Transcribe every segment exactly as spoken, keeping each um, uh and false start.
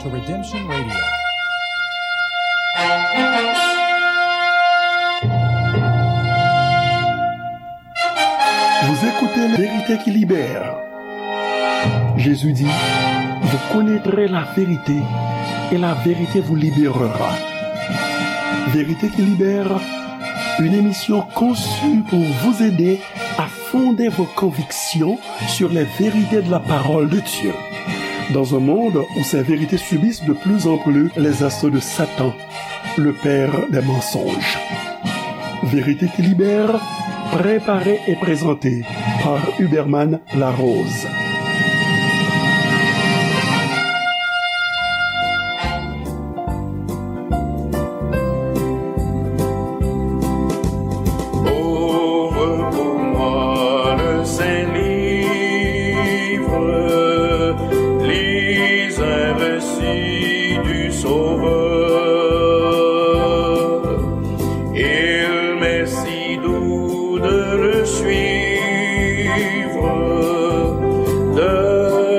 to Redemption Radio. Vous écoutez La Vérité qui libère. Jésus dit, vous connaîtrez la vérité et la vérité vous libérera. Vérité qui libère, une émission conçue pour vous aider à fonder vos convictions sur les vérités de la parole de Dieu. Dans un monde où ces vérités subissent de plus en plus les assauts de Satan, le père des mensonges. Vérité qui libère, préparée et présentée par Huberman Larose. Ouvre pour moi le saint livre, lis un récit du Sauveur. Il m'est si doux de le suivre, de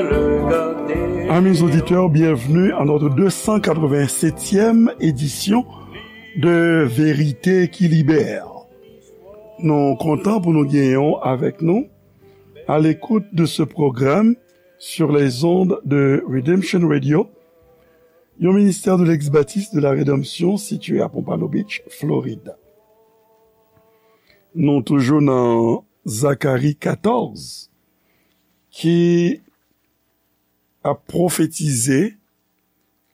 le garder. Amis auditeurs, bienvenue à notre deux cent quatre-vingt-septième édition de Vérité qui libère. Nou kontan pou nou genyen w avèk nou à l'écoute de ce programme sur les ondes de Redemption Radio, yon ministère de l'ex-baptiste de la Rédemption situé à Pompano Beach, Florida. Nou toujou nan Zakari katòz ki ap pwofetize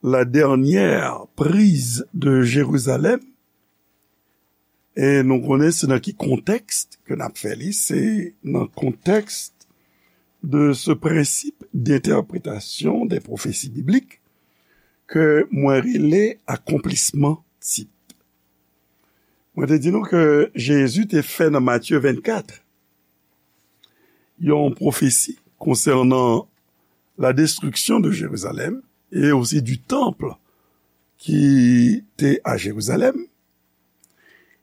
la dernière prise de Jérusalem. E nou konnen se nan ki kontèks ke n ap fè li, se nan kontèks de ce principe d'interprétation des prophéties bibliques ke mwen rele akonplisman tip. Mwen te di nou ke Jezi te fè nan Matye vennkat yon pwofesi konsènan la destruction de Jérusalem et aussi du temple ki te a Jérusalem.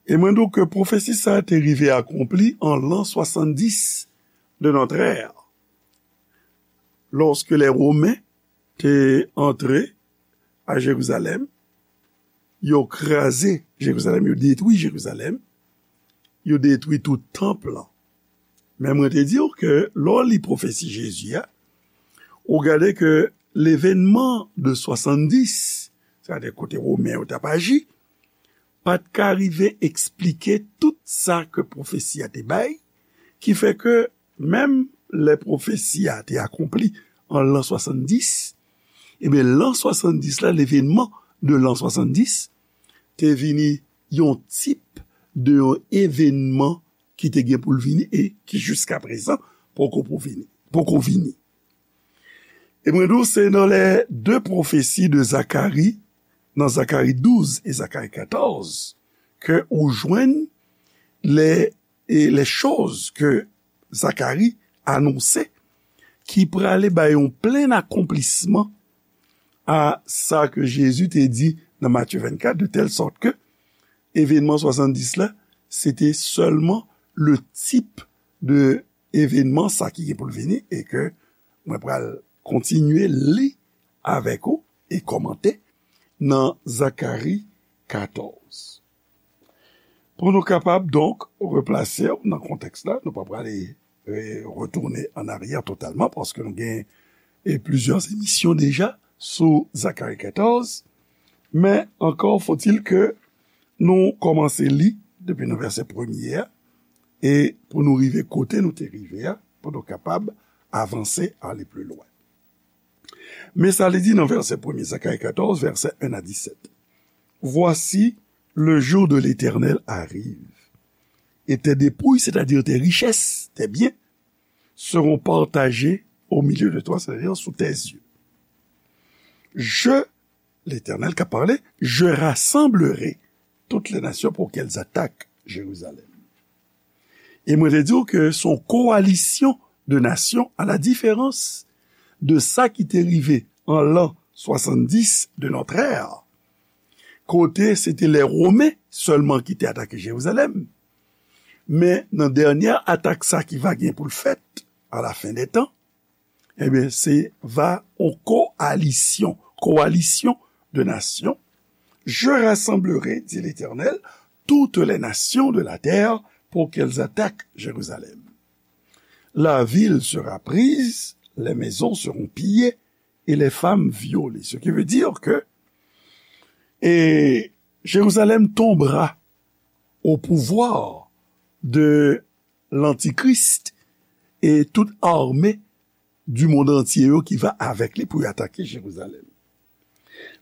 E mwen di w ke pwofesi sa a te rive akonpli an l'an soixante-dix de notre ère, lorsque les Romains te antre a Jerizalèm, yo kraze Jerizalèm, yo detwi Jerizalèm, yo detwi tout tanp lan. Men mwen te di w ke lè w li pwofesi Jezi a, ou gade ke levenman de swasanndis, sètadi kote Women yo t ap aji, pa t ka rive eksplike tout sa ke pwofesi a te bay, ki fè ke menm lè pwofesi a te akonpli an lan swasanndis, ebyen, lan swasanndis la, levenman de lan swasanndis, te vini yon tip de yon evenman ki te gen pou l vini e ki jiskaprezan poko pou vini, poko vini. E mwen di w, se nan lè de pwofesi de Zakari, nan Zakari douz e Zakari katòz, ke ou jwenn lè, e lè choz ke Zakari anonse ki prale bay yon plen akonplisman a sa ke Jezi te di nan Matye vennkat, de tèl sòt ke evenman swasanndis la, se te sèlman le tip de evenman sa ki gen pou l vini e ke mwen pral kontinye li avèk ou e kòmante nan Zakari katòz. Pou nou kapab, donk, replase w nan kontèks la, nou pa prale, e, retounen an aryè totalman, paske nou gen, e, plizyè emisyon deja sou Zakari katòz, men ankò fòtil ke nou kòmanse li depi nan vèsè premye a, e pou nou rive kote nou te rive a, pou nou kapab avanse, ale pli lwen. Men sa li di nan vèsè premye, Zakari katòz, vèsè en a disèt. Voici, le jour de l'Éternel arrive, et tes dépouilles, c'est-à-dire tes richesses, tes biens, seront partagés au milieu de toi, c'est-à-dire sous tes yeux. Je, l'Éternel ka pale, je rassemblerai toutes les nations pour qu'elles attaquent Jérusalem. E mwen te di w ke se yon kowalisyon de nasyon, a la diferans de sa ki te rive an lan swasanndis de notre ère, kote se te lè Women sèlman ki te atake Jerizalèm. Men nan dènyè atak sa ki va gen pou l fèt a la fen dè tan, ebyen, se va yon kowalisyon, coalition de nations. Je rassemblerai, dit l'Éternel, toutes les nations de la terre pour qu'elles attaquent Jérusalem. La ville sera prise, les maisons seront pillées et les femmes violées. Ce qui veut dire que et Jérusalem tombera au pouvoir de l'Antichrist et toute armée du monde entier yo ki va avec lui pour attaquer Jérusalem.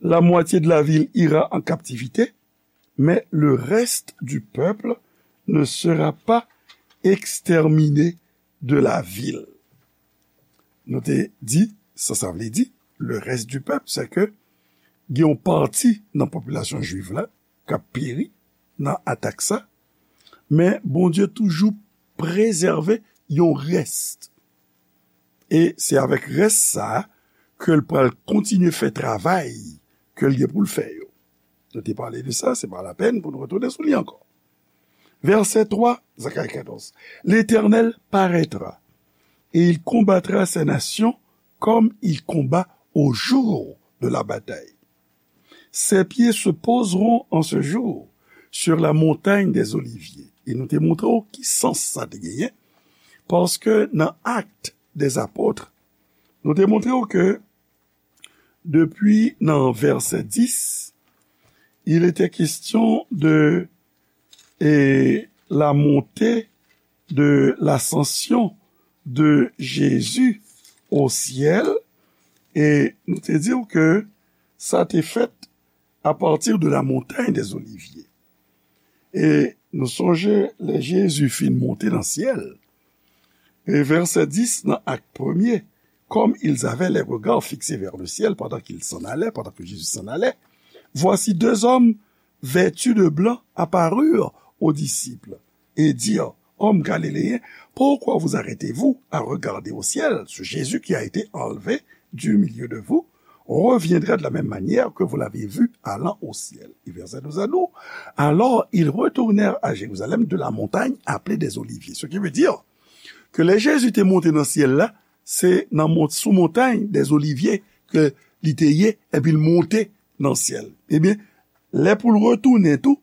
La moitié de la ville ira en captivité, mais le reste du peuple ne sera pas exterminé de la ville. Nou te di, sa sa vle di, le reste du peuple, c'est que gen yon pati nan popilasyon jwiv la k ap peri nan atak sa, men Bondye toujou prezève yon rès. E se avèk rès sa a ke l pral kontinye fè travay ke l gen pou l fè yo. Nou te pale de sa, se pa lapèn pou nou retounen sou li ankò. Verset trois, Zacharie quatorze. L'Éternel paraîtra et il combattra ces nations comme il combat au jour de la bataille. Ses pieds se poseront en ce jour sur la montagne des Oliviers. E nou te montre w ki sans sa te genyen, paske nan Actes des Apôtres, nou te montre w ke depi nan verset dix, il était question de et la montée de l'ascension de Jésus au ciel. E nou te di w ke sa te fèt à partir de la montagne des Oliviers. E nou sonje lè Jezi fin monte nan syèl, e vèsè dis nan Ak premye, comme ils avaient les regards fixés vers le ciel pendant qu'ils s'en allaient, pendant que Jésus s'en allait, voici deux hommes vêtus de blanc apparurent aux disciples et dirent, Hommes galiléens, pourquoi vous arrêtez-vous à regarder au ciel? Ce Jésus qui a été enlevé du milieu de vous reviendra de la même manière que vous l'avez vu allant au ciel. E vèsè douz a di nou, alors ils retournèrent à Jérusalem de la montagne appelée des Oliviers. Ce qui veut dire que lè Jezi te monte nan syèl la, se nan mont, sou montay dèzolivye ke li te ye, epi l monte nan syèl. Ebyen, lè pou l retounen tou,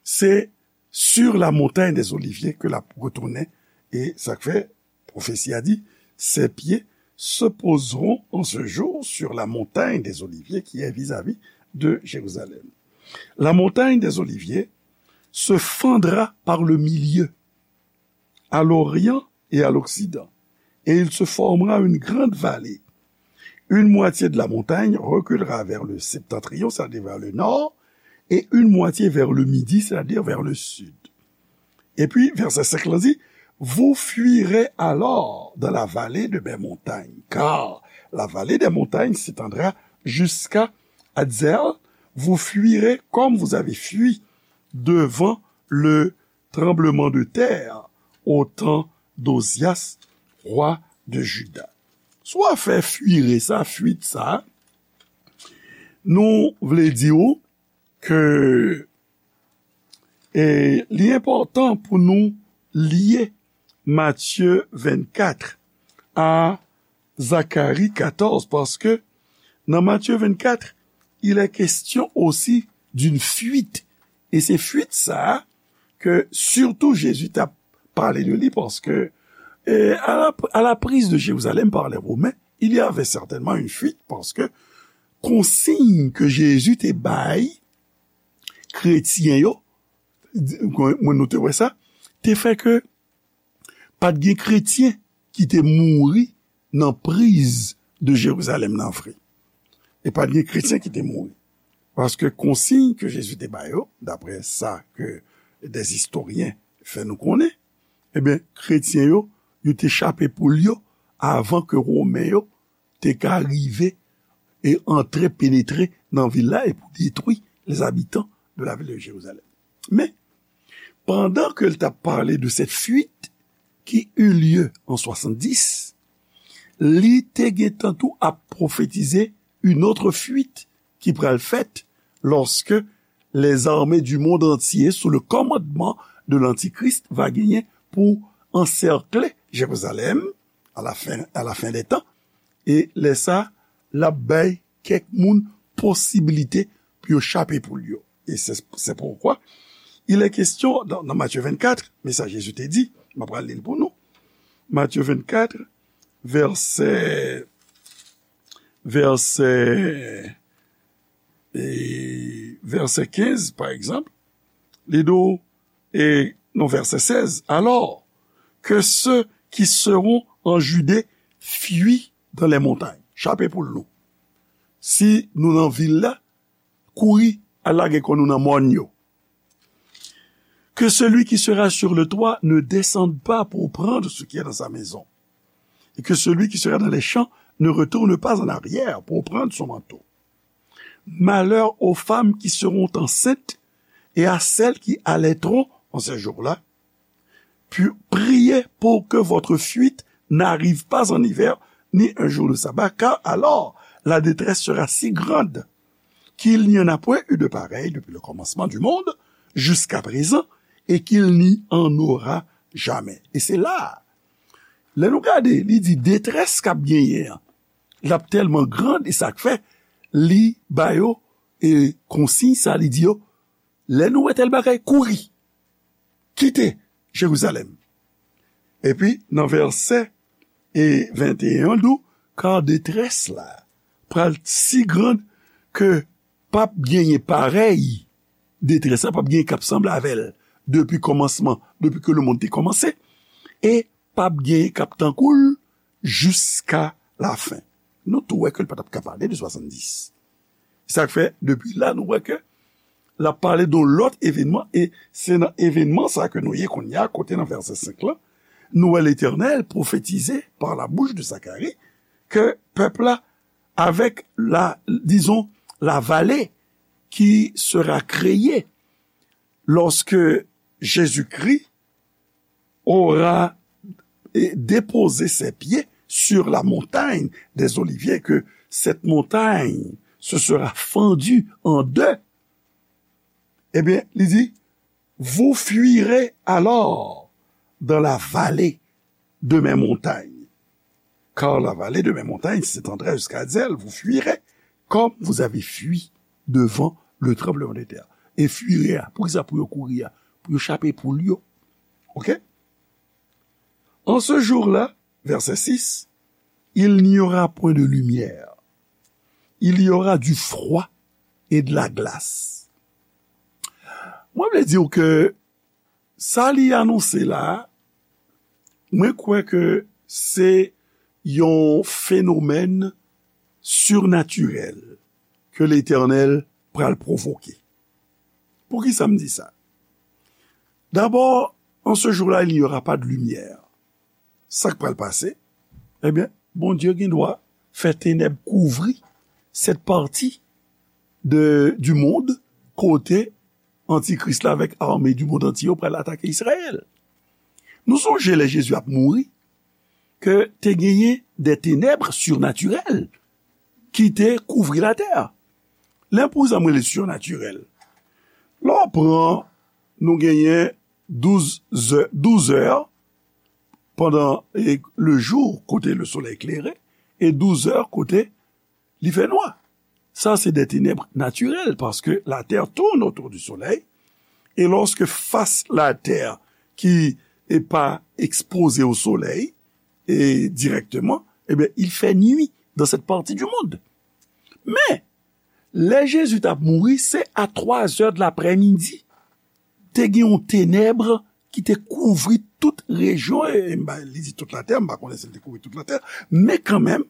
se sur la montagne des Oliviers ke l ap retounen. E sa k fè pwofesi a di, ses pieds se poseront en ce jour sur la montagne des Oliviers qui est vis-à-vis de Jérusalem. La montagne des Oliviers se fendra par le milieu, à l'orient et à l'occident, et il se formera une grande vallée. Une moitié de la montagne reculera vers le septentrion, c'est-à-dire vers le nord, et une moitié vers le midi, c'est-à-dire vers le sud. Epi, vèsè senk lan di, vous fuirez alors dans la vallée de mes montagnes, car la vallée des montagnes s'étendra jusqu'à Adzel. Vous fuirez comme vous avez fui devant le tremblement de terre au temps d'Ozias, roi de Juda. Si w ap fè fuire sa, fuit sa, nou vle di w ke e, li enpòtan pou nou lye Matye vennkat a Zakari katòz, paske nan Matye vennkat, il est question aussi d'une fuite. E se fuit sa a ke sitou Jezi t ap pale de li, paske e, à la, à la prise de Jérusalem par les Romains, il y avait certainement une fuite, paske konsiy ke Jezi te bay kretyen yo, mwen nou te wè sa, te fè ke pa t gen kretyen ki te mouri nan priz de Jerizalèm nan vre. E pa t gen kretyen ki te mouri. Paske konsiy ke Jezi te ba yo, daprè sa ke dèzistoryen fè nou konnen, ebyen, kretyen yo, yo te chape poul yo avan ke Women yo te ka rive e antre, penetre nan vil la e pou detwi les habitants de la ville de Jérusalem. Men, pandan ke l t ap pale de cette fuite qui eut lieu en soixante-dix, li te gentan tou ap pwofetize une autre fuite ki pral fèt lorsque les armées du monde entier sous le commandement de l'Antichrist va genyen pou ansèkle Jerizalèm à la fin, à la fin des temps. E lè sa, l ap bay kèk moun posibilite pou yo chape poul yo. E se, se poukwa il est question dans, dans Matthieu vingt-quatre, men sa Jezi te di, m ap pral li l pou nou. Matthieu vingt-quatre, vèsè, vèsè, e, vèsè kenz, pa egzanp, li di w, e, non, vèsè sèz, alors que ceux qui seront en Judée fuient dans les montagnes. Chape poul nou. Si nou nan vil la, kouri al lage kò nou nan mòn yo. Que celui qui sera sur le toit ne descende pas pour prendre ce qui est dans sa maison, et que celui qui sera dans les champs ne retourne pas en arrière pour prendre son manteau. Malheur aux femmes qui seront enceintes et à celles qui allaiteront en ces jours-là. Puis priez pour que votre fuite n'arrive pas en hiver, ni un jour de sabbat, car alors la détresse sera si grande qu'il n'y en a point eu de pareil depuis le commencement du monde jusqu'à présent, et qu'il n'y en aura jamais. E se la, lè nou gade, li di detrès k ap genyen an, l ap tèlman grand, e sa k fè li ba yo, e konsiy sa, li di yo, lè nou wè tèl bagay, kouri, kite Jerizalèm. Epi, nan vèsè e venteyen an, di w, kar detrès la pral si grand ke p ap genyen parèy detrès la, p ap genyen k ap sanble avè l depi kòmansman, depi ke lemonn te kòmanse, e p ap genyen k ap tankou l jiska lafen. Nou tou wè ke l pa t ap ka pale de swasanndis. Sa k fè, depi la, nou wè ke l ap pale de yon lòt evènman, e se nan evènman sa ke nou ye kounye a, kote nan vèsè senk lan, nou wè Letènèl pwofetize par la bouche de Zacharie ke pèp la, avec la, disons, la vallée qui sera créée lorsque Jésus-Christ aura eh, déposé ses pieds sur la montagne des Oliviers, que cette montagne se sera fendue en deux, eh bien, li di, vous fuirez alors dans la vallée de mes montagnes. Car la vallée de mes montagnes s'étendra jusqu'à Azèl, vous fuirez comme vous avez fui devant le tremblement de terre. E fuire a, poukisa pou yo kouri a? Pou yo chape poul yo. Ok? En ce jour-là, verset six, il n'y aura point de lumière. Il y aura du froid et de la glace. Mwen vle di w ke sa li anonse la, mwen kwè ke se yon fenomèn sirnatirèl ke Letènèl pral pwovoke. Poukisa m di sa? D'abord, en ce jour-là, il n'y aura pas de lumière. Sa k pral pase? Ebyen, Bondye gen dwa fè tenèb kouvri cette partie de, du monde kote Antikris la avèk ame du monde entier yo pral atake Izrayèl. Nou sonje lè Jezi ap mouri, ke te genyen de tenèb sirnatirèl ki te kouvri latè. Lè pou sa mwen le sirnatirèl. Lè w pran, nou genyen douz zè, douz è pandan, e, le jou kote le solèy klere, e douz è kote li fè nwa. Sa se de tenèb natirèl, paske la terre tourne autour du soleil, et lorsque face la terre qui est pas exposée au soleil, et directement, eh bien, il fait nuit dans cette partie du monde. Men, lè Jezi t ap mouri, se a twa zè de laprèmidi, te gen yon tenèb ki te kouvri tout rejyon, e, e m pa, li di tout latè, m pa konnen si l te kouvri tout latè, men kanmenm,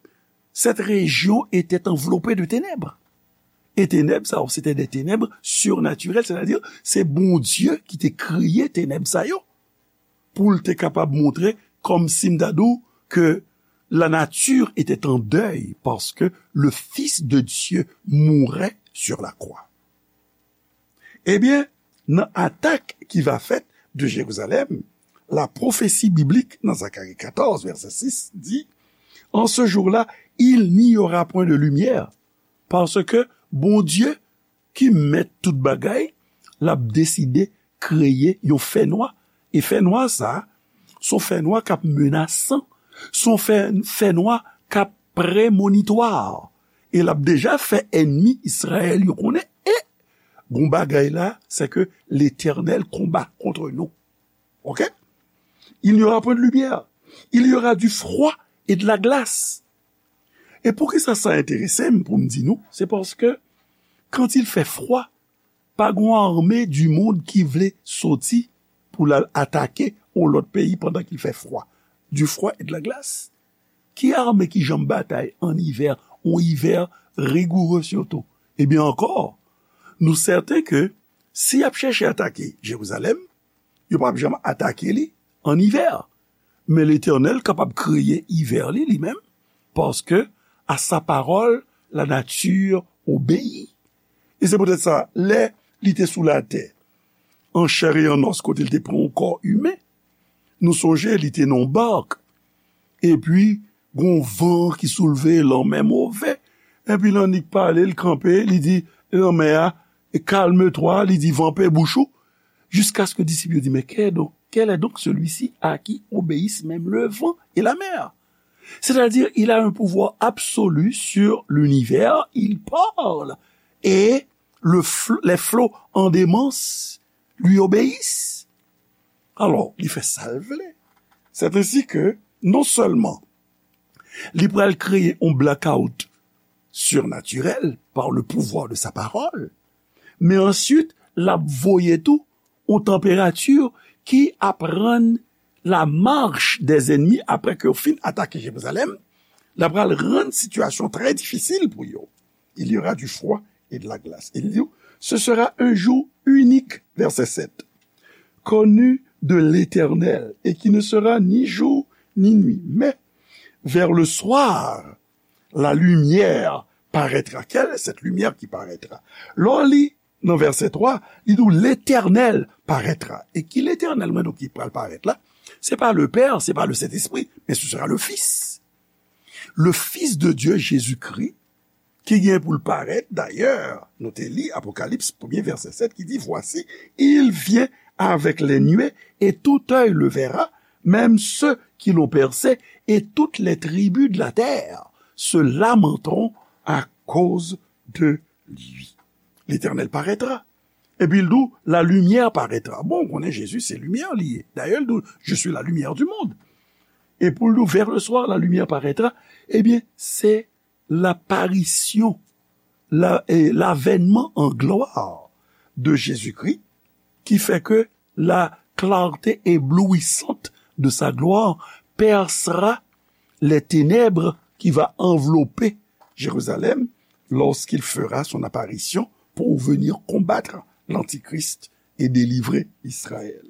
cette région était enveloppée de ténèbres. E tenèb sa yo, se te de tenèb sirnatirèl, sètadi, se Bondye ki te kreye tenèb sa yo, pou l te kapab montre, kòmsi m ta di w, ke la nature était en deuil parce que le Fils de Dieu mourait sur la croix. Ebyen, nan atak ki va fèt de Jérusalem, la prophétie biblique nan Zacharie quatorze, verset six, di, en ce jour-là, il n'y aura point de lumière, parce que Bondye, ki mèt tout bagay, l ap deside kreye yon fènwa. E fènwa sa a, se yon fènwa k ap menasan, se yon fè, fènwa k ap premonitwa. E l ap deja fè ènmi Izrayèl yo konnen, e gon bagay la, c'est que l'Éternel combat contre nous. Ok? Il n'y aura point de lumière. Il y aura du froid et de la glace. E poukisa sa enterese m pou m di nou? Se paske quand il fait froid, pa gon ame du monde ki vle soti pou l al atake yon lòt peyi pandan ki l fè fwa. Du froid et de la glace. Ki ame ki janm batay an ivè, yon ivè rigoure sitou? Ebyen ankò, nou sèten ke si y ap chèche atake Jerizalèm, yo p ap janm atake li an ivè. Men Letènèl kapab kreye ivè li, li menm, paske à sa parole, la nature obéit. E se poutèt sa, lè li te sou latè, an chè e an os, kote li te pran yon kò imen, nou sonje li te nan yon bak, epi gon van ki soulve, lanmè move, epi l annik pale, l kanpe, li di lanmè a, calme-toi, li di van, pe bouch ou, jusqu'à ce que disip yo di, mais quel est donc, quel est donc celui-ci à qui obéissent même le vent et la mer? C'est-à-dire, il a un pouvoir absolu sur l'univers, il parle, et le fl- les flots en démence lui obéissent. Alò, li fè sa l vle. C'est ainsi que, non seulement li pral kreye yon blackout surnaturel par le pouvoir de sa parole, men answit, l ap voye tou yon tanperati ki ap rann la marche des ennemis, apre ke yo fin atake Jerizalèm, l ap pral rann sitiyasyon trè difisil pou yo. Il y aura du froid et de la glace. Il dit, ce sera un jour unique, verset sept, connu de l'Éternel, et qui ne sera ni jour ni nuit. Mais vers le soir, la lumière paraîtra. Quelle est cette lumière qui paraîtra? Lè w li nan vèsè twa, li di w, Letènèl parètra. E ki Letènèl, mwen, donk, ki pral parèt la? Se pa le Père, se pa le Saint-Esprit, mais ce sera le Fils. Le Fils de Dieu, Jésus-Christ, ki gen pou l parèt. Dayè, nou te li Apokalips, premye vèsè sèt, ki di, voici, il vient avec les nuées, et tout œil le verra, même ceux qui l'ont percé, et toutes les tribus de la terre se lamenteront à cause de lui. L'Éternel paraîtra. Epi l di w, la lumière paraîtra. Bon, ou konnen Jezi se limyè li ye. Dayè, l di w, je suis la lumière du monde. E pou l di w, vers le soir, la lumière paraîtra, ebyen, se laparisyon, la, eh, l'avènement en gloire de Jésus-Christ, qui fait que la clarté éblouissante de sa gloire percera les ténèbres qui va envelopper Jérusalem lorsqu'il fera son apparition pour venir combattre l'Antichrist et délivrer Israël.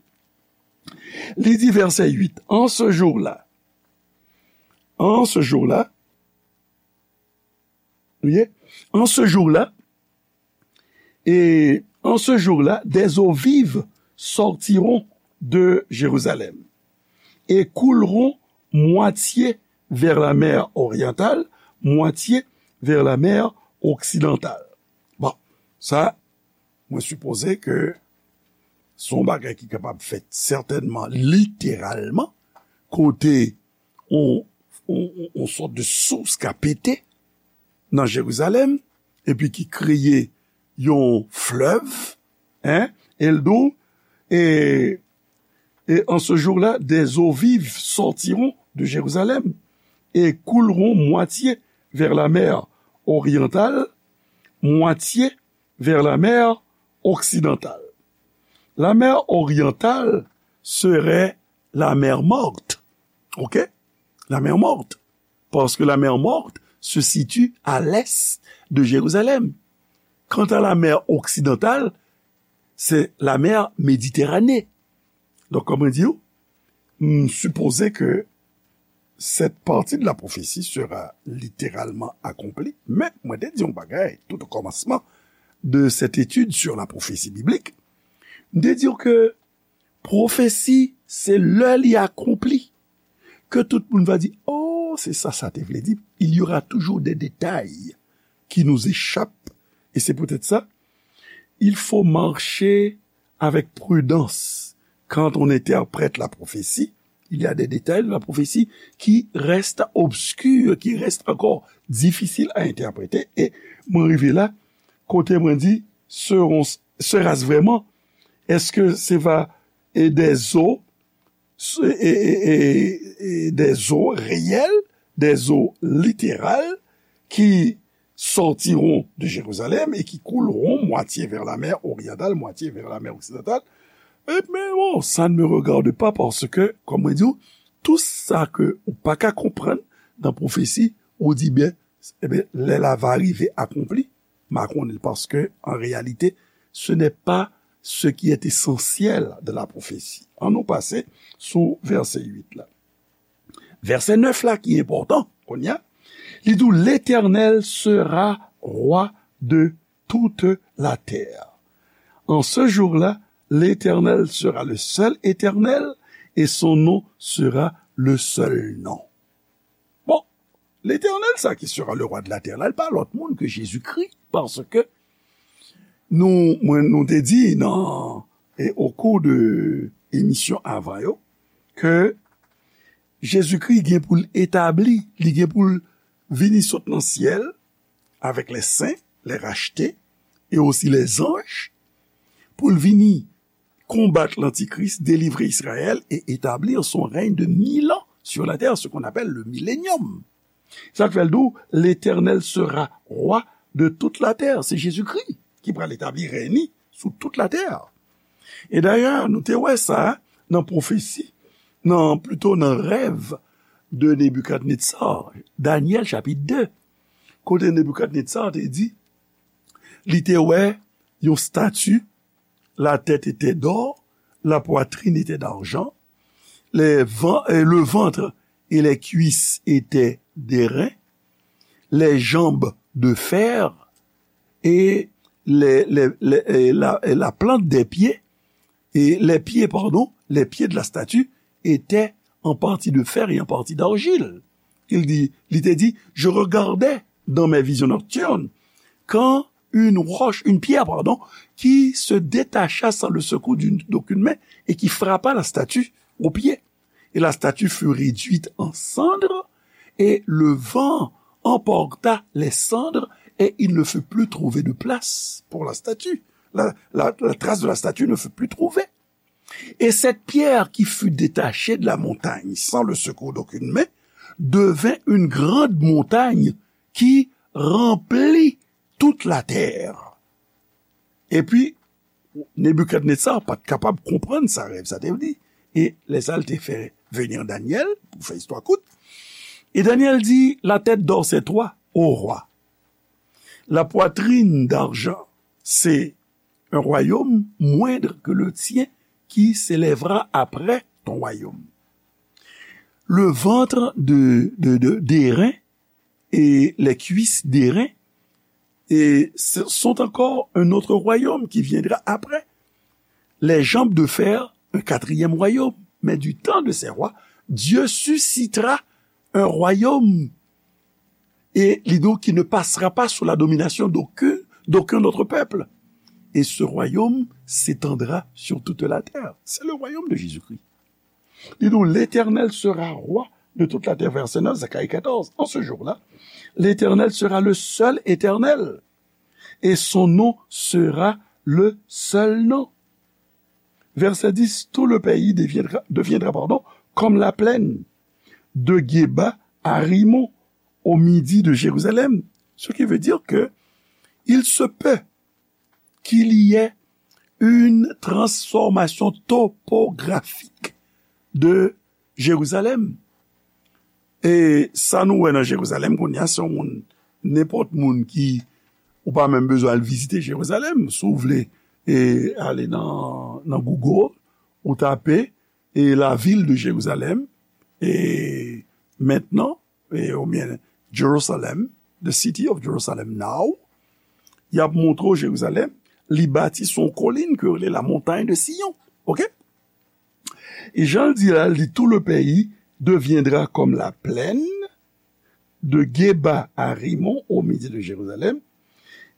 Li di, vèsè uit, en ce jour-là, en ce jour-là, Vous voyez? En ce jour-là, et en ce jour-là, des eaux vives sortiront de Jérusalem et couleront moitié vers la mer orientale, moitié vers la mer occidentale. Bon, sa, mwen sipoze ke se yon bagay ki kapab fèt sètènman literalman, kote yon, yon, yon, yon sòt de sous ka pete nan Jerizalèm, epi ki kreye yon flèv, hein, e l di w, et, et en ce jour-là, des eaux vives sortiront de Jérusalem et couleront moitié vers la mer orientale, moitié vers la mer occidentale. La mer orientale serait la mer Morte. Ok? La mer Morte. Parce que la mer Morte se situe à l'est de Jérusalem. Quant à la mer occidentale, c'est la mer Méditerranée. Donk, kòman di w, m sipoze ke cette partie de la prophétie sera littéralement accomplie, men mwen te di yon bagay tout au commencement de cette étude sur la prophétie biblique. M te di w ke pwofesi, se lè li akonpli, ke tout moun va di, oh, se sa sa te vle di. Il y aura toujours des détails qui nous échappent. Et c'est peut-être ça. Il faut marcher avec prudence quand on interprète la prophétie, Il y a des détails de la prophétie qui restent obscurs, qui restent encore difficiles à interpréter. E mwen rive la, kote mwen di, seront, sera-ce vraiment? Est-ce que ce va, et des eaux, et, et, et, et des eaux réelles, des eaux littérales qui sortiront de Jérusalem et qui couleront moitié vers la mer orientale, moitié vers la mer occidentale? Eh bien, bon, ça ne me regarde pas parce que, comme on dit, tout ça que ou pa ka konprann nan pwofesi, ou di byen, eh bien, lè la va rive akonpli, ma konnen l, paske, an reyalite, ce n'est pas ce qui est essentiel de la prophétie. An nou pase sou vèsè uit la. Vèsè nèf la ki enpòtan, kounye a, li di, l'Éternel sera roi de toute la terre. En ce jour-là, l'Éternel sera le seul Éternel et son nom sera le seul nom. Bon, Letènèl sa ki sera le roi de la terre la, li pa lòt moun ke Jezikri, paske nou, mwen, nou te di nan, e, au cours de emisyon avan yo, ke Jezikri gen pou l etabli, li gen pou l vini sot nan syèl avèk les saints, les rachetés, et aussi les anges, pou l vini konbat lantikris, délivrer Israël et établir son règne de mille ans sur la terre, ce qu'on appelle le millénium. Sa k fè l di w, l'Éternel sera roi de toute la terre. Se Jezikri ki pral etabli rèy li sou tout latè. E dayè, nou te wè sa nan pwofesi, nan, plito nan rèv de Nebikadnetsar, Danyèl chapit de, kote Nebikadnetsar te di, li te wè yon stati, la tête était d'or, la poitrine était d'argent, les ven- euh, le ventre et les cuisses étaient d'airain, les jambes de fer et les, les- les- et la, et la plante des pieds, et les pieds, pardon, les pieds de la statue étaient en partie de fer et en partie d'argile. Il dit, li te di, je regardais dans mes visions nocturnes quand une roche, une pierre, pardon, qui se détacha sans le secours d'une- d'aucune main et qui frappa la statue au pied. Et la statue fut réduite en cendres, et le vent emporta les cendres, et il ne fut plus trouvé de place pour la statue. La, la- la trace de la statue ne fut plus trouvée. Et cette pierre qui fut détachée de la montagne sans le secours d'aucune main devint une grande montagne qui remplit toute la terre. Epi, Nebikadnetsar pa t kapab konprann sa rèv sa te vle di. E lè sa, l te fè venir Daniel, pou fè istwa kout. Et Daniel dit, la tête d'or, c'est toi, ô roi. La poitrine d'argent, c'est un royaume moindre que le tien qui s'élèvera après ton royaume. Le ventre de, de, de, d'airain et les cuisses d'airain et ce sont encore un autre royaume qui viendra après. Les jambes de fer, un quatrième royaume. Mais du temps de ces rois, Dieu suscitera un royaume et li di w qui ne passera pas sous la domination d'aucun, d'aucun autre peuple. Et ce royaume s'étendra sur toute la terre. C'est le royaume de Jésus-Christ. Li di w, l'Éternel sera roi de toute la terre, verset neuf, Zacharie quatorze. En ce jour-là, l'Éternel sera le seul Éternel, et son nom sera le seul nom. Verset dix, tout le pays deviendra, deviendra, pardon, comme la plaine de Geba à Rimon, au midi de Jérusalem. Ce qui veut dire que il se peut qu'il y ait une transformation topographique de Jérusalem. E sa nou wè nan Jerizalèm kounye a, se yon moun, nenpòt moun ki, ou pa menm bezwen al vizite Jerizalèm. Si w vle, e, ale nan, nan Google, ou tape, e, la ville de Jérusalem, e, maintenant, e, oubyen Jerusalem, the city of Jerusalem now, y ap montre w Jerizalèm, li bati sou yon kolin ke yo rele la montagne de Sion. Oke? E jan l di la, li, tout le pays deviendra comme la plaine de Geba à Rimon au midi de Jérusalem,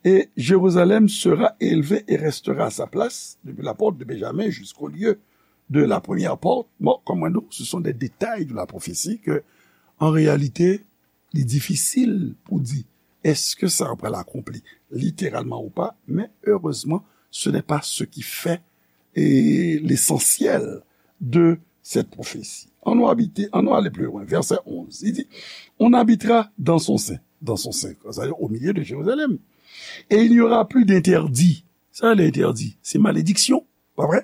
et Jérusalem sera élevée et restera à sa place, depuis la porte de Benjamin jusqu'au lieu de la première porte. Bon, comme on dit, ce sont des détails de la prophétie que, en réalité, li difisil pou di èske sa pral akonpli littéralement ou pas, mais heureusement, ce n'est pas ce qui fait, eh, l'essentiel de cette prophétie. Ann nou abite, ann nou ale pli lwen. Vèsè onz, li di, on habitera dans son sein, dans son sein, c'est-à-dire au milieu de Jérusalem. Et il n'y aura plus d'interdit. Sa le entèdi, se malediksyon, pa vre?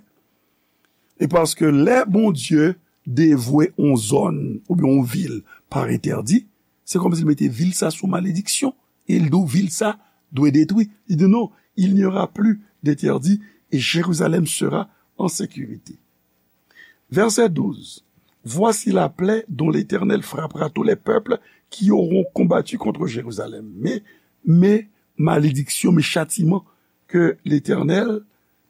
E paske lè Bondye devwe yon zòn oubyen yon vil pa entèdi, se kòmsi l mete vil sa sou malediksyon. E l di w vil sa dwe detwi. Li di non, il n'y aura plus d'interdit et Jérusalem sera en sécurité. Verset douze. Voici la plaie dont l'Éternel frappera tous les peuples qui auront combattu contre Jérusalem. Men, men malediksyon, men chatiman ke Letènèl,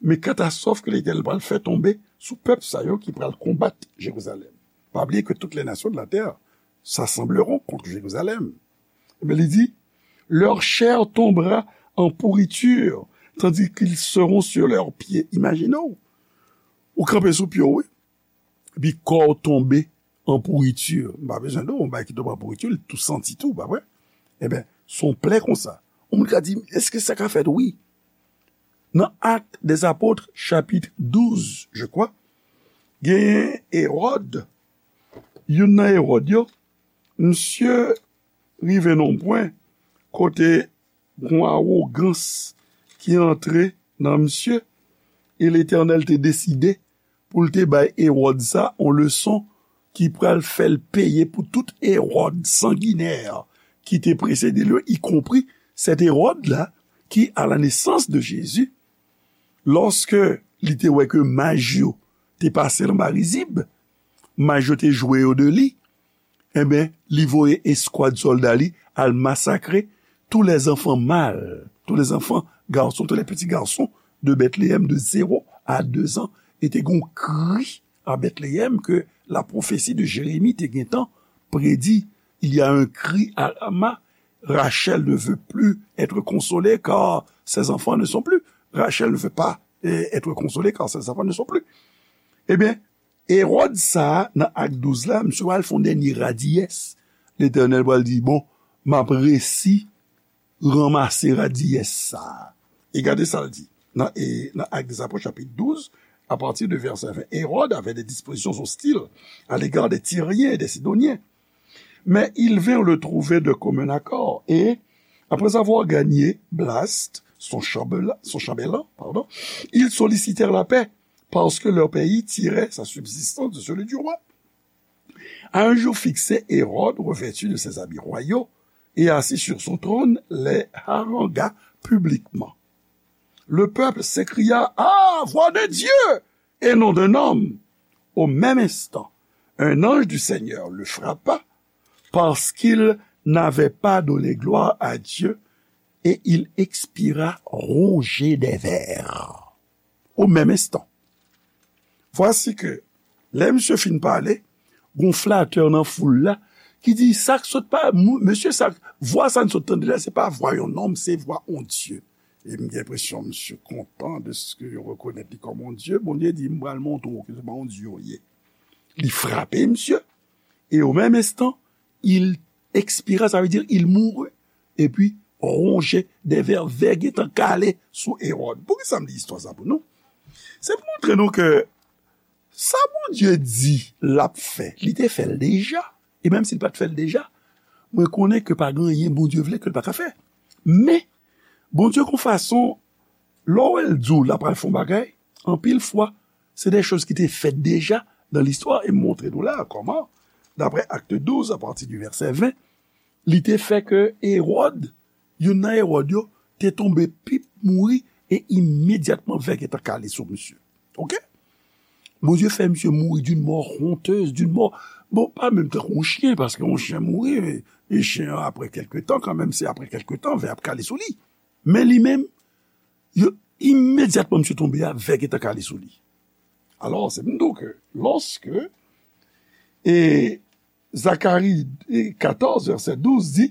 men katastwòf ke Letènèl pral fè tonbe sou pèp sa yo ki pral konbat Jerizalèm. Pa bliye ke toutes les nations de la terre s'assembleront contre Jérusalem. Ebyen, li di, leur chair tombera en pourriture, tandis qu'ils seront sur leurs pieds. Imajine w, ou kanpe sou pye w, wi. Epi kò w tonbe an pouriti. M pa bezwen di w, yon bagay ki tonbe an pouriti, li tou santi tou, pa vre? Ebyen, se yon plè konsa. Yon moun ka di, èske sa ka fèt? Wi. Nan Actes des Apôtres, chapit douz, je crois, genyen Ewòd, youn nan Ewòd yo, misye rive nan yon pwen kote gon awogans ki antre nan misye, e Letènèl te deside pou l te bay Ewòd sa yon leson ki pral fè l peye pou tout Ewòd sanginè ki te presede l yo, ikonpri sèt Ewòd la ki, à la naissance de Jésus, lòske li te wè ke maj yo te pase l anba rizib, maj yo te jwe yo de li, enben, li voye eskwad sòlda li al masakre tous les enfants mâles, tous les enfants garçons, tous les petits garçons de Bethléem de zéro à deux ans. E te gen yon kri a Bethléem ke la prophétie de Jérémie te gentan predi. Il y a un cri à Rama, Rachel ne veut plus être consolée car ses enfants ne sont plus. Rachel ne veut pas, eh, être consolée car ses enfants ne sont plus. Ebyen, Ewòd sa a, nan Ak douz la, misye pral fè yon dènye radiyès. Letènèl pral di, bon, m ap resi ranmase radiyès sa a. E gade sa l di nan, e, nan Actes des Apôtres, chapitre douze, à partir de verset vingt. Hérode avait des dispositions hostiles à l'égard des Tyriens et des Sidoniens. Mais ils vinrent le trouver de commun accord, et, après avoir gagné Blaste, son chambellan, son chambellan, pardon, ils sollicitèrent la paix, parce que leur pays tirait sa subsistance de celui du roi. À un jour fixé, Hérode, revêtu de ses habits royaux et assis sur son trône, les harangua publiquement. Le peuple s'écria, ah, voix de Dieu et non d'un homme. Au même instant, un ange du Seigneur le frappa parce qu'il n'avait pas donné gloire à Dieu et il expira rongé des vers. Au même instant. Voici que, lè misye fin pale, gon flatè nan foul la ki di, sa k sot pa, mesye, sa, vwa sa n sot tande la, se pa vwa yon nonm, se vwa yon Dye. E m gen enpresyon misye kontan de ce que yo rekonèt li kòm yon Dye. Bondye di, m pral montre w ke se pa yon Dye w ye. Li frape misye. E o menm enstan, il expira, sa vle di, il mourut. Epi, ronje de vè, vè gentan kale sou Ewòd. Poukisa m li istwa sa pou nou? Se pou montre nou ke sa Bondye di l ap fè, li te fè l deja. E menm si l pa t fè l deja, mwen konnen ke pa gen anyen Bondye vle ke l pa ka fè. Men, Bondye gon fason, lè w wè l di w l ap pral fè yon bagay, anpil fwa, se de choz ki te fèt deja nan listwa, e m montre nou la kòman, daprè Actes douze, à partir du verset vingt, li te fè ke Ewòd, youn nan Ewòd yo, te tonbe pip mouri, e imedyatman vè gentan kale sou misye. Oke? Bondye fè misye mouri d'une mort honteuse, d'une mort, bon, pa menm tankou yon chen, paske yon chen mouri, e, e chen an, apre kèlke tan, kanmenm, se apre kèlke tan, vè ap kale sou li. Men li menm, yo, imedyatman misye tonbe a, vè gentan kale sou li. Alò, se pou m di w ke lòske, e, Zacharie, e, quatorze, verset douze di,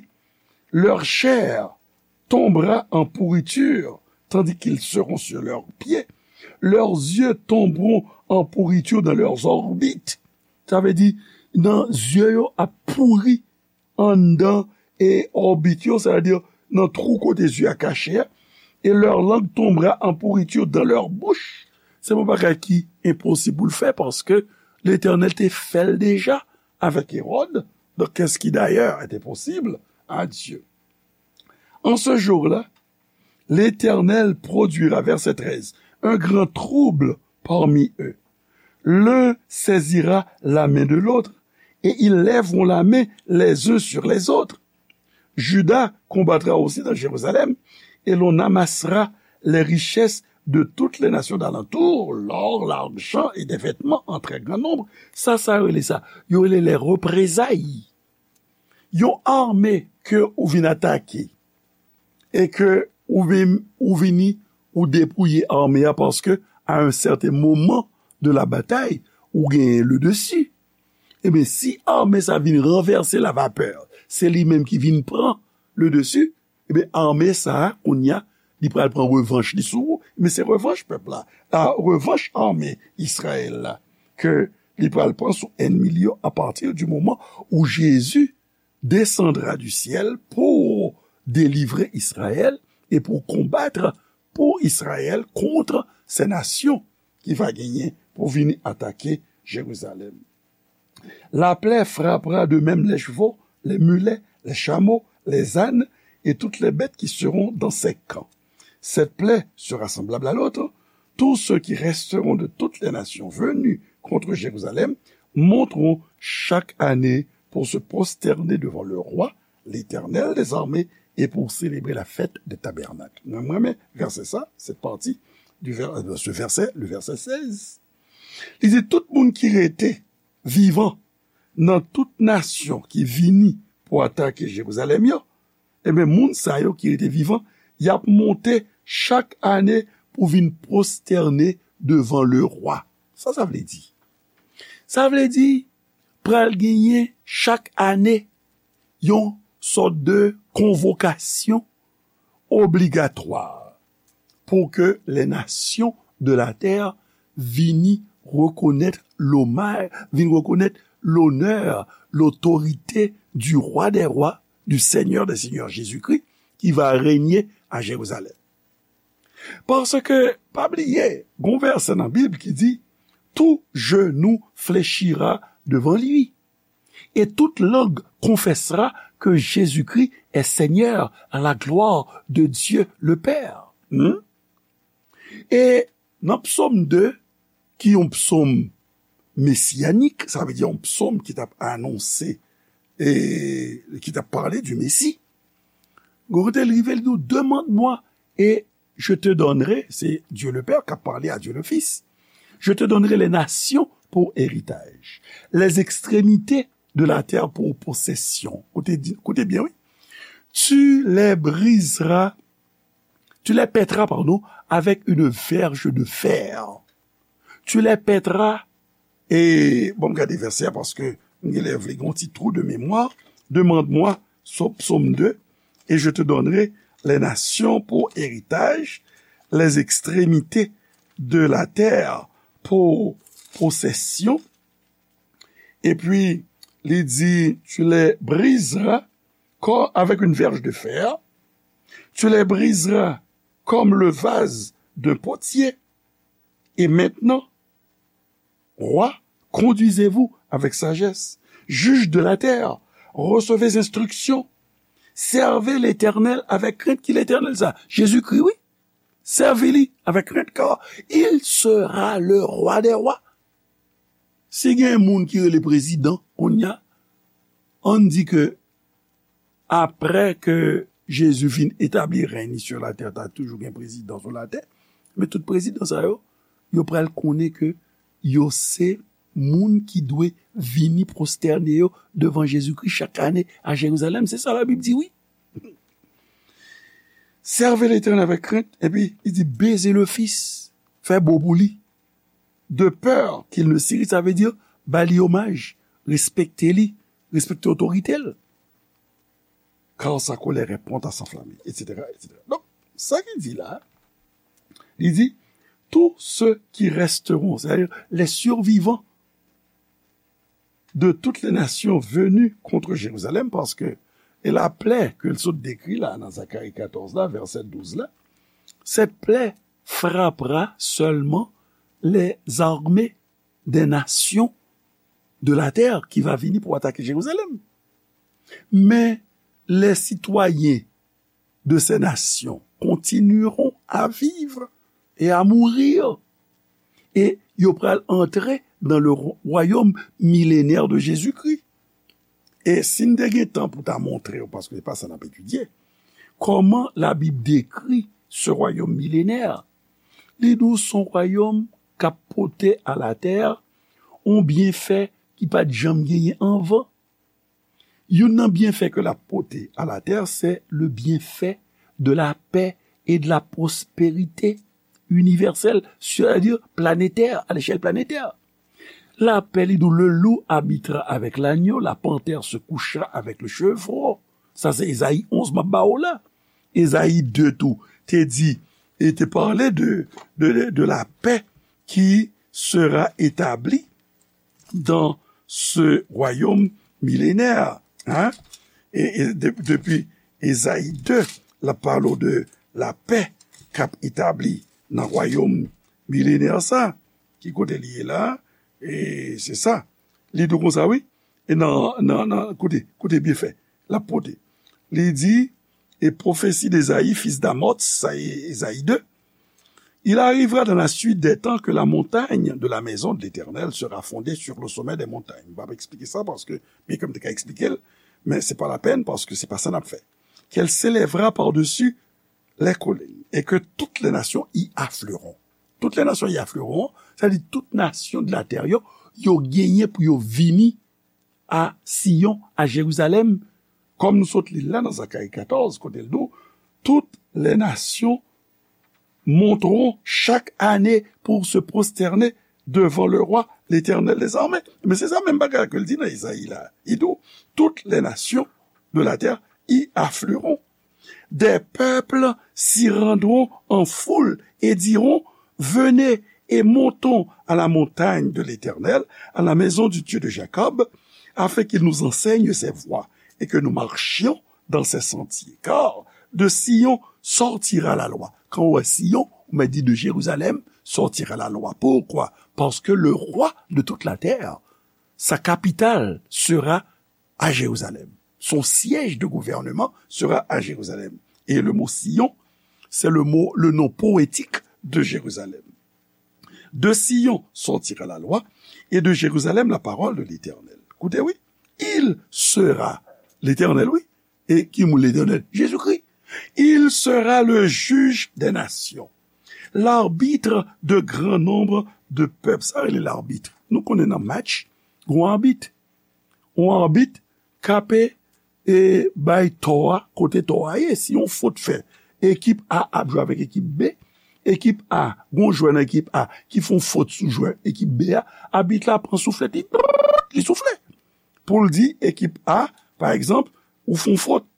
leur chair tombera en pourriture, tandis qu'ils seront sur leurs pieds. Leurs yeux tomberont en pourriture dans leurs orbites. Sa vle di, nan zye yo ap pouri anndan e òbit yo, sa vle di nan twou kote zye a kache a, et leur langue tombera en pourriture dans leur bouche. Se yon bagay ki enposib pou l fè, paske Letènèl te fè l deja avèk Ewòd. Donc, qu'est-ce qui d'ailleurs était possible à Dieu? En ce jour-là, l'Éternel produira, verset treize, un grand trouble parmi eux. L'un saisira la main de l'autre, et ils lèveront la main les uns sur les autres. Juda combattra aussi dans Jérusalem, et l'on amassera les richesses de toutes les nations d'alentour, l'or, l'argent et des vêtements en très grand nombre. Sa, sa yo rele sa? Yo rele les représailles. Yon ame ke ou vin atake e ke ou vin, ou vini, ou depouye ame a paske à un certain moment de la bataille, ou genyen le dessus. Ebyen, si ame sa vin ranvèse la vapè, se li menm ki vin pran le dessus, ebyen, ame sa a, kounye a, li pral pran revanch li sou ou. Men se revanch pèp la, a, revanch ame Izrayèl la, ke li pral pran sou ènmi li yo à partir du moment où Jésus descendra du ciel pour délivrer Israël et pour combattre pour Israël contre ces nations ki va genyen pou vini atake Jérusalem. La plaie frappera de même les chevaux, les mulets, les chameaux, les ânes et toutes les bêtes qui seront dans ces camps. Cette plaie sera semblable à l'autre. Tous ceux qui resteront de toutes les nations venues contre Jérusalem monteront chaque année pour se prosterner devant le roi, l'Éternel des armées, et pour célébrer la fête des tabernacles. Mwen renmen vèsè sa, cette partie du ver- de ce verset, le verset seize. Li di, tout moun ki rete vivan nan tout nasyon ki vini pou atake Jerizalèm yo, ebyen, moun sa yo ki rete vivan, y ap monte chak ane pou vin pwostène devan lerwa. Sa sa vle di? Sa vle di, pral genyen chak ane yon sòt de konvokasyon obligatwa pou ke les nations de la terre vini rekonèt lomaj, vin rekonèt lonè, lotorite du roi des rois, du Seigneur des seigneurs, Jésus-Christ, qui va régner à Jérusalem. Paske, pa bliye, gon vèsè nan Bib ki di, tout genou fléchira devant lui. Et toute langue confessera que Jésus-Christ est Seigneur à la gloire de Dieu le Père. Hmm? E nan Psaume deux, ki yon psaume messianique, sa vle di yon psaume ki t ap anonse, e ki t ap pale du Messie, gon kote l rive, li di, demande-moi et je te donnerai, c'est Dieu le Père qui a parlé à Dieu le Fils, je te donnerai les nations pour héritage, les extrémités de la terre pour possession. Koute, koute byen, wi. Tu les briseras, tu les pètras, pardon, avec une verge de fer. Tu les pètras, e bon, m gade vèsè a paske m genlè vle gen yon ti trou de mémoire. Demande-moi, Psaume deux, et je te donnerai les nations pour héritage, les extrémités de la terre pour possession. Epi, li di, tu les briseras comme avec une verge de fer, tu les briseras comme le vase d'un potier. Et maintenant, roi, conduisez-vous avec sagesse, juges de la terre, recevez instruction, servez l'Éternel avec crainte. Ki Letènèl sa? Jezikri, wi. Sèvi li avèk krent, car il sera le roi des rois. Si gen moun ki rele prezidan, kounye a, ann di ke apre ke Jezi fin etabli rèy li sur la terre, ta toujou gen prezidan sou latè, men tout prezidan sa yo, yo pral konnen ke yo se moun ki dwe vini pwostène yo devan Jezikri chak ane a Jerizalèm. Se sa Labib di, wi. Servez l'Éternel avec crainte, epi li di, baiser le Fils, fè bo pou li. De peur qu'il ne s'irrite, sa vle di, ba li omaj, respekte li, respekte otorite l. Car sa colère est prompte à s'enflammer, et cetera, et cetera. Donk, sa ki di la, li di, tous ceux qui resteront, c'est-à-dire les survivants de toutes les nations venues contre Jérusalem, paske e laplè ke l sot dekri la nan Zakari katòz la, vèsè douz la, cette plaie frappera seulement les armées des nations de la terre qui va vini pou atake Jerizalèm. Mais les citoyens de ces nations continueront à vivre et à mourir. E yo pral antre dans le royaume millénaire de Jésus-Christ. E si n te gen tan pou ta montre w, paske se pa sa n ap etidye, kòman Labib dekri ce royaume millénaire? Li di w se yon wayòm k ap pote alatè yon byenfè ki pa t janm genyen anvan. Youn nan byenfè ke l ap pote alatè, c'est le bienfait de la paix et de la prospérité universelle, c'est-à-dire planétaire, à l'échelle planétaire. La paix, li di w, le loup habitera avec l'agneau, la panthère se couchera avec le chevreau. Sa se Ezayi onz m ap ba w la. Ezayi de tou te di, e te pale de, de, de la paix qui sera établie dans ce royaume millénaire. Hein? E, e de, depi Ezayi de, l ap pale w de lapè k ap etabli nan wayòm milenè sa. Ki kote li ye la? E se sa. Li di w konsa, wi. E nan, nan, nan, koute, koute byen fè. L ap pote. Li di, et prophétie d'Ésaïe, fils d'Amoz, sa e Ezayi de. Il arrivera dans la suite des temps que la montagne de la maison de l'Éternel sera fondée sur le sommet des montagnes. M p ap eksplike sa paske, byen ke m te ka eksplike l, men se pa lapèn paske se pa sa n ap fè. Qu'elle s'élèvera par-dessus les collines et que toutes les nations y afflueront. Toutes les nations y afflueront, sa vle di tout nasyon de latè yo, yo genyen pou yo vini a Siyon, a Jerizalèm, kòm nou sot li l la nan Zakari katòz, kote l di w, toutes les nations monteront chaque année pour se prosterner devant le roi, l'Éternel des armées. Men se sa menm bagay ke l di nan Ezayi la. Li di w, toutes les nations de la terre y afflueront. Des peuples s'y rendront en foule et diront, venez et montons à la montagne de l'Éternel, à la maison du Dieu de Jacob, afin qu'il nous enseigne ses voies et que nous marchions dans ses sentiers. Car de Sion sortira la loi. Quand on voit Sion, on m'a dit de Jérusalem sortira la loi. Pourquoi? Parce que le roi de toute la terre, sa capitale sera à Jérusalem. Son siège de gouvernement sera à Jérusalem. Et le mot Sion, c'est le mot, le nom poétique de Jérusalem. De Sion sortira la loi, et de Jérusalem la parole de l'Éternel. Koute, wi. Il sera, Letènèl, wi. E ki moun Letènèl? Jezikri. Il sera le juge des nations, l'arbitre de grand nombre de peuples. Sa rele labit. Nou konnen nan match, gon abit. Yon abit k ap e bay tò a kote tò a ye. Si yon fot fè, ekip A ap jwe avèk ekip B, ekip A, gon jwè nan ekip A ki fè yon fot sou jwè ekip B a, abit la pran souflèt, li, li soufle. Pou l di ekip A, pa egzanp, ou fè yon fot.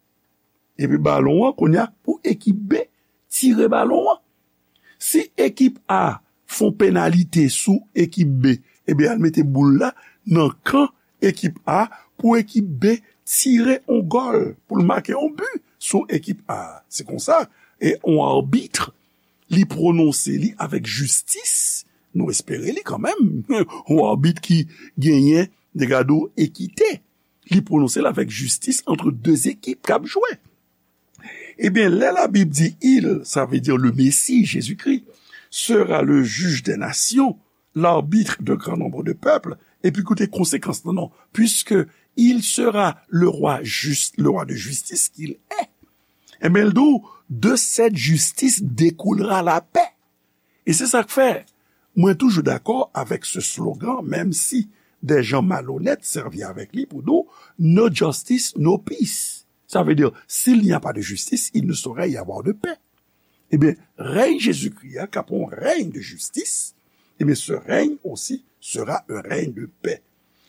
Epi balon an, kounye a, pou ekip B tire balon an. Si ekip A fè yon penalite sou ekip B, ebyen, al mete boul la nan kan ekip A pou ekip B tire yon gòl, pou l make yon bi sou ekip A. Se konsa, e yon abit, li pwononse li avèk jistis, nou espere li kanmenm, yon abit ki genyen, de gade w, ekite. Li pwononse l avèk jistis ant de zekip k ap jwe. Ebyen, lè Labib di il, sa vle di le Messie, Jésus-Christ, sera le juge des nations, l'arbitre de grand nombre de peuples, epi koute konsekans lan, non, puisque il sera le roi juste, le roi de justice qu'il est. Ebyen, l di w, de cette justice découlera la paix. E se sa k fè, mwen toujou dakò avèk se slogan, menm si des gens malhonnêtes sèvi avèk li pou di w, no justice, no peace. Sa vle di, s'il n'y a pas de justice, il ne saurait y avoir de paix. Ebyen, rèy Jezikri a, k ap yon rèy de jistis, ebyen, ce règne aussi sera un règne de paix.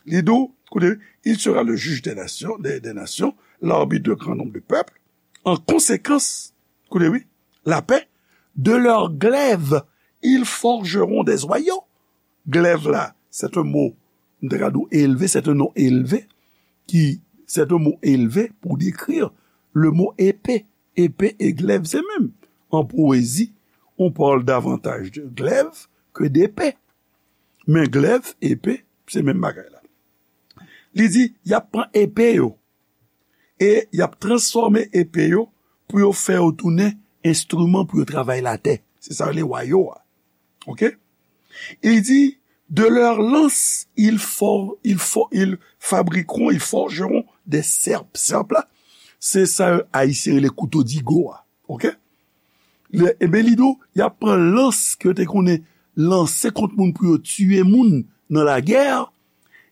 Li di w, koute, il sera le juge des nations, des, des nations, l'arbitre de grand nombre de peuples. En conséquence, koute, wi, la paix, de leurs glaives ils forgeront des joyaux. Glaive la, c'est un mot, m te ka di w élevé, c'est un nom élevé, qui, c'est un mot élevé pour décrire le mot épée. Épée et glaive, se menm. En poésie, on parle davantage de glaive que d'épée. Men glaive, épée, se menm bagay la. Li di, y ap pran epe yo, e y ap transfòme epe yo pou yo fè yo tounen enstriman pou yo travay latè. Se sa yo rele wayo a. Oke? Il dit, de leurs lances, ils, for, ils, for, ils fabriqueront, ils forgeront des serpes. Sèp la, se sa Ayisyen rele kouto digo a. Oke? Ebyen, li di w, y ap pran lans ke yo te konnen lanse kont moun pou yo tiye moun nan lagè,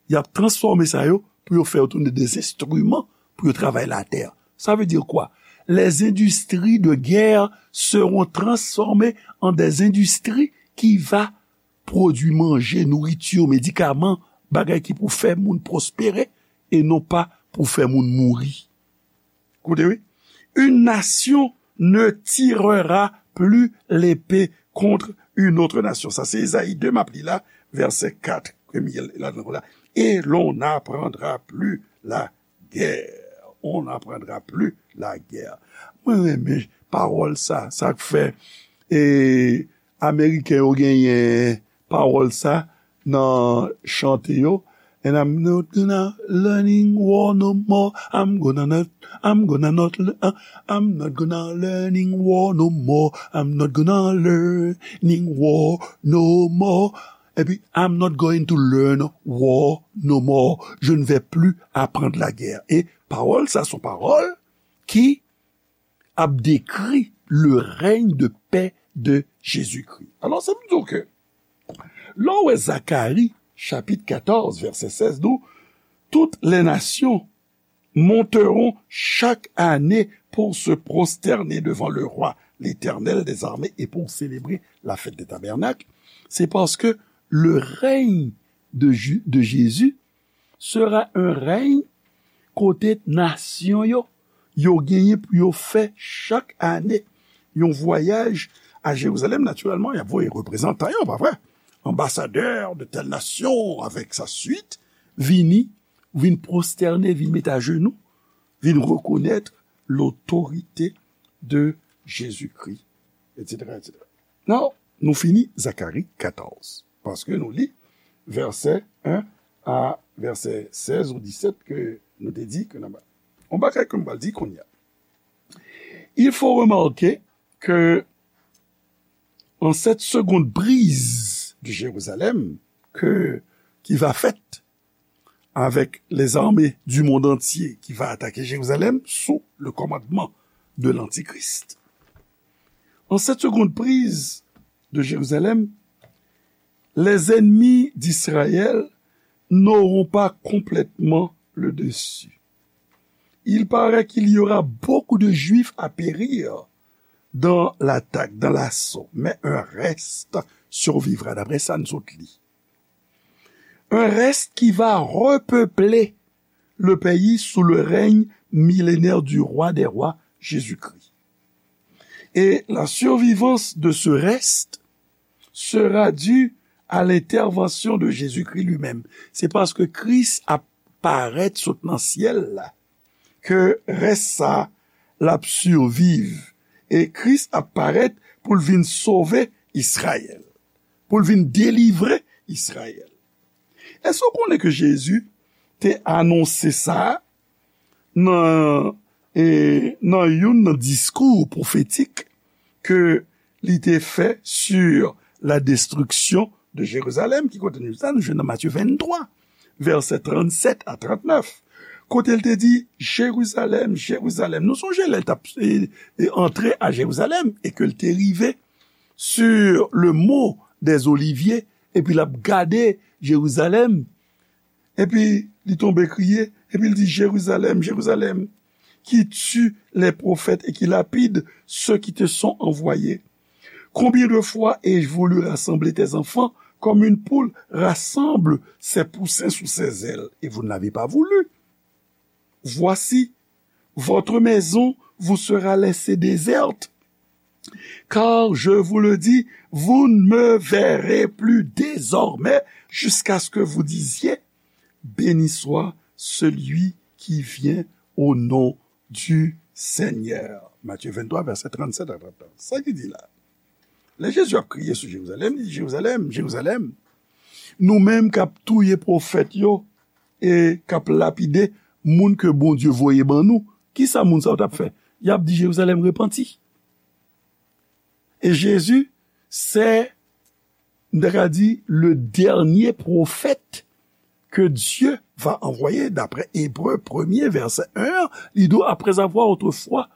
y ap transfòme sa yo pou yo fè yo tounen de enstriman pou yo travay latè. Ça veut dire quoi? Les industries de guerre seront transformées en des industries qui va pwodui manje, nouriti, medikaman, bagay ki pou fè moun pwospere e non pa pou fè moun mouri. Koute, wi. Une nation ne tirera plus l'épée contre une autre nation. Sa se Ezayi de, m ap li la, vèsè kat, premye ladan la. Et l'on n'apprendra plus la guerre. On n'apprendra plus la guerre. Mwen renmen pawòl sa, sa k fè e Ameriken yo genyen pawòl sa nan chante yo. And I'm not gonna learning war no more. I'm gonna not, I'm gonna not, le- uh, I'm not gonna learning war no more. I'm not gonna learning war no more. Epi, I'm not going to learn war no more. Je ne vais plus apprendre la guerre. E pawòl sa, se yon pawòl ki ap dekri le règne de paix de Jésus-Christ. Alò, sa vle di ke lè w wè Zakari, chapit katòz, vèsè sèz, di w, toutes les nations monteront chaque année pour se prosterner devant le roi, l'Éternel des armées, et pour célébrer la fête des tabernacles. C'est parce que le règne de, Ju- de Jésus sera un règne kote nasyon yo, yo genyen pou yo fè chak ane yon vwayaj a Jerizalèm. Natirèlman, y ap voye reprezantan yo, pa vre? Anbasadè de tèl nasyon avèk sa swit vini, vin pwostène, vin met ajenou, vin rekonèt lotorite de Jezikri, etsetera, etsetera. Non, nou fini Zakari katòz, paske nou li vèsè en a vèsè sèz ou disèt ke nou te di ke nan ba. On bagay ke m pral di kounye a. Il faut remarquer que en cette seconde prise de Jérusalem que, qui va faite avec les armées du monde entier qui va attaquer Jérusalem sous le commandement de l'Antichrist. En cette seconde prise de Jérusalem, les ennemis d'Israël n'auront pas complètement le dessus. Il paraît qu'il y aura beaucoup de Juifs à périr dans l'attaque, dans l'assaut, mais un reste survivra. D'après ça, nous autres, li. Un reste qui va repeupler le pays sous le règne millénaire du roi des rois, Jésus-Christ. Et la survivance de ce reste sera due à l'intervention de Jésus-Christ lui-même. Se paske Kris ap parèt sot nan syèl la, ke rès sa l ap siviv. E Kris ap parèt pou l vin sove Izrayèl, pou l vin delivre Izrayèl. Èske w konnen ke Jezi te anonse sa nan, e, nan youn nan diskou pwofetik ke li te fè sur la destruction de Jérusalem, ki kote nou sa, nou jwenn nan Matye venntwa, vèsè trannsèt a trantnèf, kote l te di, Jérusalem, Jérusalem. Nou sonje lè l t ap, e, e, antre a Jérusalem e ke l te rive sur le mont des Oliviers, epi l ap gade Jérusalem, epi li tonbe kriye, epi l di, Jérusalem, Jérusalem, qui tue les prophètes et qui lapide ceux qui te sont envoyés. Combien de fois ai-je voulu rassembler tes enfants comme une poule rassemble ses poussins sous ses ailes, et vous ne l'avez pas voulu. Voici, votre maison vous sera laissée déserte. Car je vous le dis, vous ne me verrez plus désormais jusqu'à ce que vous disiez, béni soit celui qui vient au nom du Seigneur. Matthieu vingt-trois, verset trente-sept à trente-neuf. Sa ki di la. Lè Jezi ap kriye sou Jerizalèm, li di, Jerizalèm, Jerizalèm, nou menm k ap touye pwofèt yo e k ap lapide moun ke Bondye voye ban nou, kisa moun sa yo t ap fè? Y ap di Jerizalèm repanti. E Jezi, se, m ta ka di, le dernier prophète que Dieu va envoyer, d'après Hébreux premier, verset un, li di, après avoir autrefois,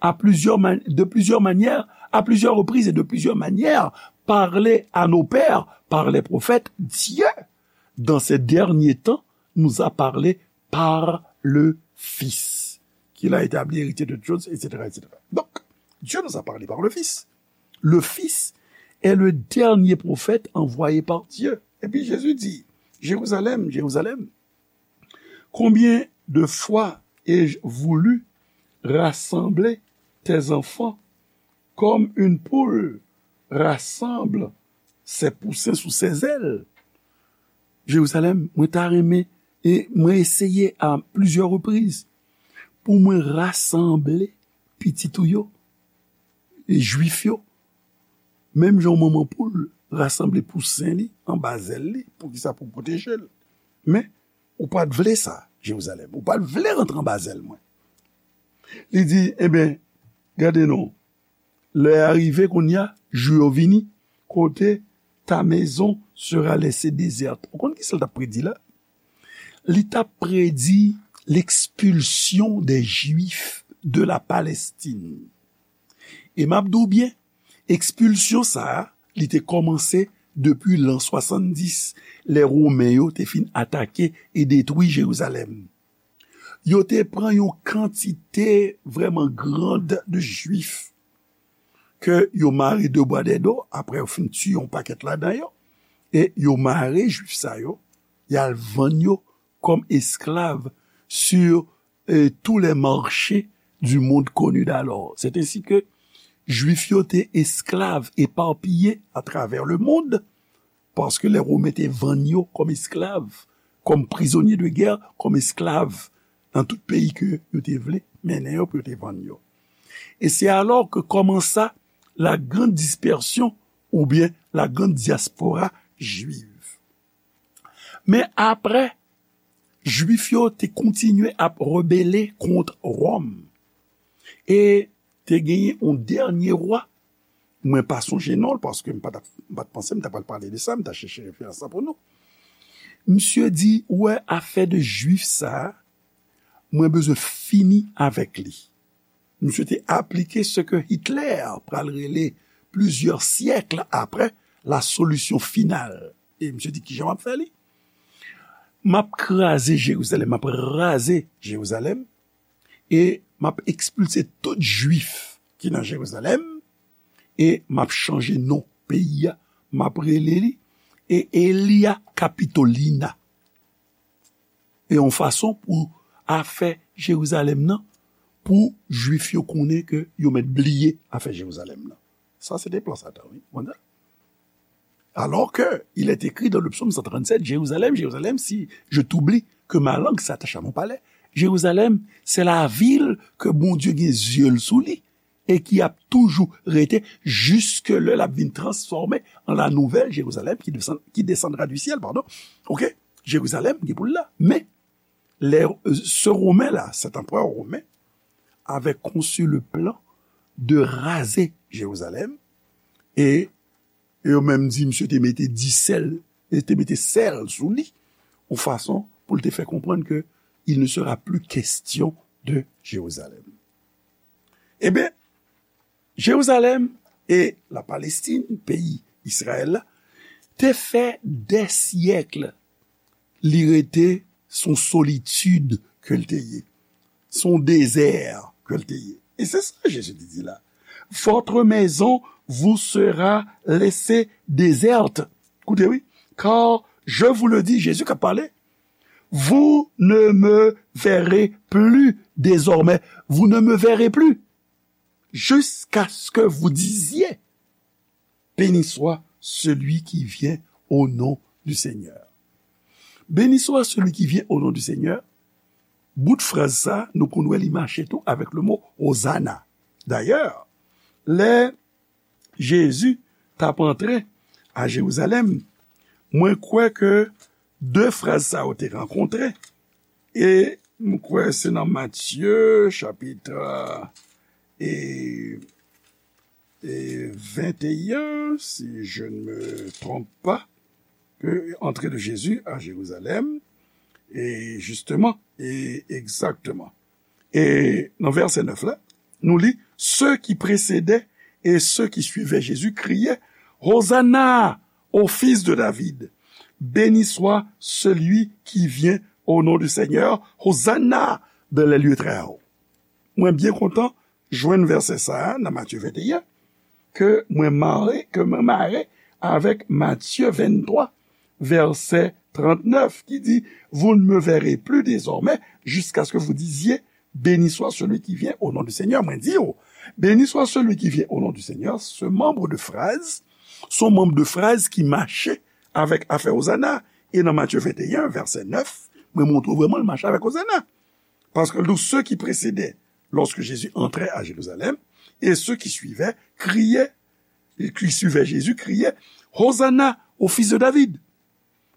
à plusieurs man- de plusieurs manières, à plusieurs reprises et de plusieurs manières, parlé à nos pères par les prophètes, Dieu, dans ces derniers temps, nous a parlé par le Fils, qu'il a établi héritier de toutes choses, et cetera, et cetera. Donc, Dieu nous a parlé par le Fils. Le Fils est le dernier prophète envoyé par Dieu. Et puis Jésus dit, Jérusalem, Jérusalem, combien de fois ai-je voulu rassembler tes enfants comme une poule rassemble ses poussins sous ses ailes. Jerizalèm, mwen ta renmen, e mwen eseye a plizyè repriz pou mwen rasanble pitit ou yo, e Jwif yo, menm jan yon manman poul rasanble pousen li anba zèl li, poukisa? Pou pwoteje l. Men, ou pa t vle sa, Jerizalèm. Ou pa t vle rantre anba zèl mwen. Li di, ebyen, gade non, lè a rive kounye a, jou yo vini, kote ta maison sera laissée déserte. Ou konn kisa l t ap predi la? Li t ap predi l'expulsion des Juifs de la Palestine. E m ap di w byen, ekspilsyon sa a, li te kòmanse depi lan swasanndis, lè Women yo te fin atake e detwi Jerizalèm. Yo te pran yon kantite vrèman grand de Jwif ke yo mare de bwa dèdo, apre yo fin tiye yon pakèt ladan yo, e yo mare Jwif sa yo, y al vann yo kòm esklav sur, euh, tous les marchés du monde connu d'alors. C'est ainsi que Jwif yo te esklav epapiye atravè le mond, paske lè Women te vann yo kòm esklav, kòm prizonye de gè, kòm esklav nan tout peyi ke yo te vle mennen yo pou yo te vann yo. E se alò ke kòmansa la grande dispersion oubyen la grande diaspora juive. Men apre, Jwif yo te kontinye ap rebele kont Wòm. E te genyen yon dènye wa, mwen pa sonje non l, paske m pa t ap, m pa t panse m ta pral pale de sa, m ta chèche referans la pou nou. Misye di, ou wè afè de Jwif sa a, mwen bezwen fini avèk li. Misye te aplike se ke Hitler pral rele plizyè syèk apre la solution finale. E misye di, kijan m ap fè li? M ap kraze Jerizalèm, m ap raze Jerizalèm, e m ap ekspilse tout Jwif ki nan Jerizalèm, e m ap chanje non peyi a, m ap rele li, e Aelia Capitolina. E yon fason pou afè Jerizalèm nan, pou Jwif yo konnen ke yo mèt bliye afè Jerizalèm nan. Sa se te plan Satan, wi. Ou konprann? Alors que il est écrit dans le psaume cent trente-sept, Jérusalem, Jérusalem, si je t'oublie, que ma langue s'attache à mon palais. Jérusalem, c'est la ville que Bondye gen zye l sou li e ki ap toujou rete jiske lè l ap vin transfòme an la nouvelle Jérusalem qui descend, qui descendra du ciel, pardon. Ok? Jerizalèm gen pou l la. Men, lè, euh, ce Romain là, cet empereur romain, avait conçu le plan de raser Jérusalem, e, e yo menm di misye te mete di sèl, e te mete sèl sou li, yon fason pou l te fè konprann ke il ne sera plus question de Jérusalem. Ebyen, Jerizalèm e la Palestine, peyi Izrayèl la, te fè dè syèk li rete, se yon solitid ke l te ye, se yon dezè ke l te ye. E se sa Jezi te di la, votre maison vous sera laissée déserte. Koute wi, car je vous le dis, Jezi k ap pale, vous ne me verrez plus désormais, vous ne me verrez plus. jusqu'à ce que vous disiez, béni soit celui qui vient au nom du Seigneur. Béni soit celui qui vient au nom du Seigneur. Bout fraz sa, nou konn wè li mache tou avèk le mo Hosanna. Dayè, lè Jezi t ap antre a Jerizalèm, mwen kwè ke de fraz sa yo te rankontre. E m kwè se nan Matye, chapit, e, e venteyen, si je ne me trompe pas, que entrée de Jésus à Jérusalem, e justement, e exactement. E nan vèsè nèf la, nou li, ceux qui précédaient et ceux qui suivaient Jésus criaient, Hosanna au fils de David. Béni soit celui qui vient au nom du Seigneur. Hosanna dans les lieux très hauts. Mwen byen kontan jwenn vèsè sa a nan Matye venteyen, ke mwen mare, ke mwen mare avèk Matye venntwa, vèsè trannèf, ki di, Vous ne me verrez plus désormais jusqu'à ce que vous disiez, Béni soit celui qui vient au nom du Seigneur. Mwen di w, Béni soit celui qui vient au nom du Seigneur, se manm de fraz, se yon manm de fraz ki mache avèk afè Hosanna. E nan Matye venteyen, vèsè nèf, mwen montre w vrèman l mache avèk Hosanna. Paske l di w, ceux qui précédaient lorsque Jésus entrait à Jérusalem et ceux qui suivaient criaient, et qui suivaient Jésus criaient, Hosanna au fils de David.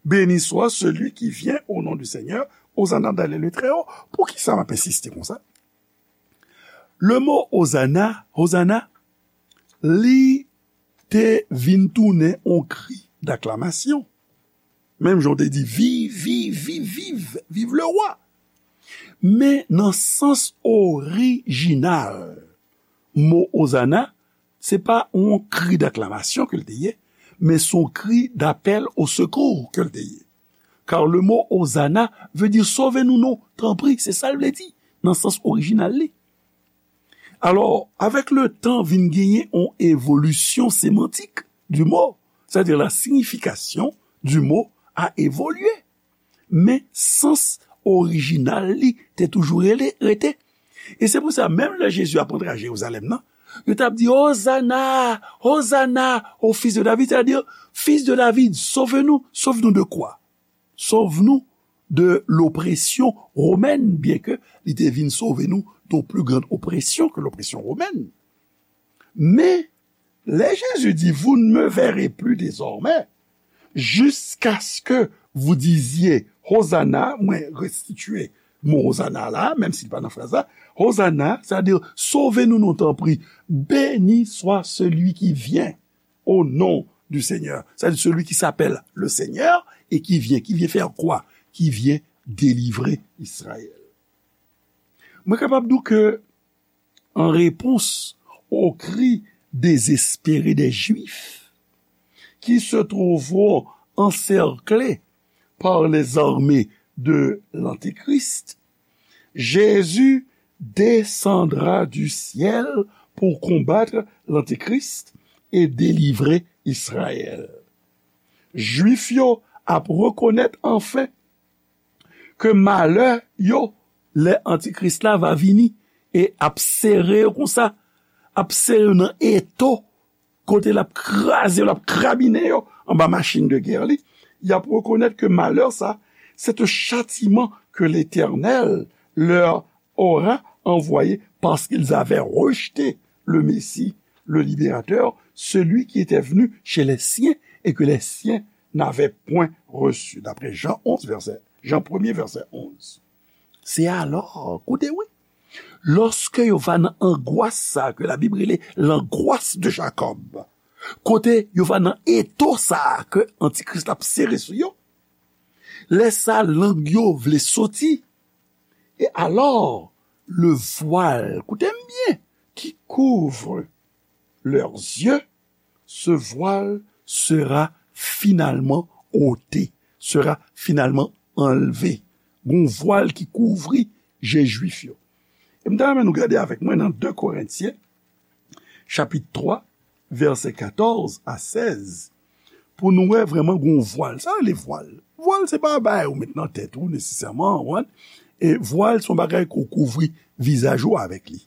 Béni soit celui qui vient au nom du Seigneur, Hosanna dans les lieux très hauts. Poukisa m ap ensiste konsa? Le mo Hosanna, Hosanna, li te vin tounen yon kri daklamasyon. Menm jan w te di, viv, viv, viv, viv, viv le roi. Men nan sans orijinal mo Hosanna, se pa yon kri daklamasyon ke l te ye, men se yon kri d'appel au secours ke l te ye. Car le mot Hosanna veut dire sove nou non, tanpri, se sa l vle di, nan sans orijinal li. Alò, avèk le tan, vin genyen yon evolisyon semantik du mot, c'est-à-dire la signification du mot a évolué. Men sans orijinal li te toujou rele, rete. E se pou sa, menm lè Jezi ap antre a Jerizalèm nan, yo t ap di, Hosanna, Hosanna au fils de David, c'est-à-dire, Fils de David, sauve-nous. Sauve-nous de quoi? Sauve-nous de l'oppression romaine, byenke li te vin sove nou de yon pli grann opresyon ke lopresyon womèn. Men, lè Jezi di, Vous ne me verrez plus désormais, jusqu'à ce que vous disiez, Hosanna, mwen restitiye mo Hosanna la, menm si l pa nan fraz la, Hosanna, c'est-à-dire, sove nou non, tanpri, béni soit celui qui vient au nom du Seigneur, c'est-à-dire celui qui s'appelle le Seigneur et qui vient, qui vient faire quoi? Qui vient délivrer Israël. Mwen kapab di w ke en réponse au cri désespéré des Juifs qui se trouveront encerclés par les armées de l'Antéchrist, Jésus descendra du ciel pour combattre l'Antéchrist et délivrer Israël. Jwif yo ap rekonèt anfen ke malè yo, lè Antikris la va vini e ap sere yo konsa, ap sere yo nan eto, kote l ap kraze yo, l ap krabinen yo anba machin de gè li, y ap rekonèt ke malè sa, c'est un châtiment que l'Éternel leur aura envoyé parce qu'ils avaient rejeté le Messie, le libérateur, celui qui était venu chez les siens et que les siens n'avaient point reçu. D'après Jean onze, verset, Jean premier, verset onze. Se alò, koute wi, lòske yo va nan angwas sa ke Labib rele l'angoisse de Jacob, kote yo va nan eto sa ke Antikris la ap sere sou yo, lè sa lang yo vle soti, et alors, le voile, koute m byen, qui couvre leurs yeux, ce voile sera finalement ôté, sera finalement enlevé. Gon vwal ki kouvri je jwif yo. E m ta renmen nou gade avèk mwen nan de Korentyen, chapit twa, vèsè katòz a sèz, pou nou wè vrèman gon vwal. Sa rele vwal. Vwal se pa bagay ou met nan tèt ou nesesèman, ou konprann? E vwal se yon bagay ke w kouvri vizaj ou avèk li.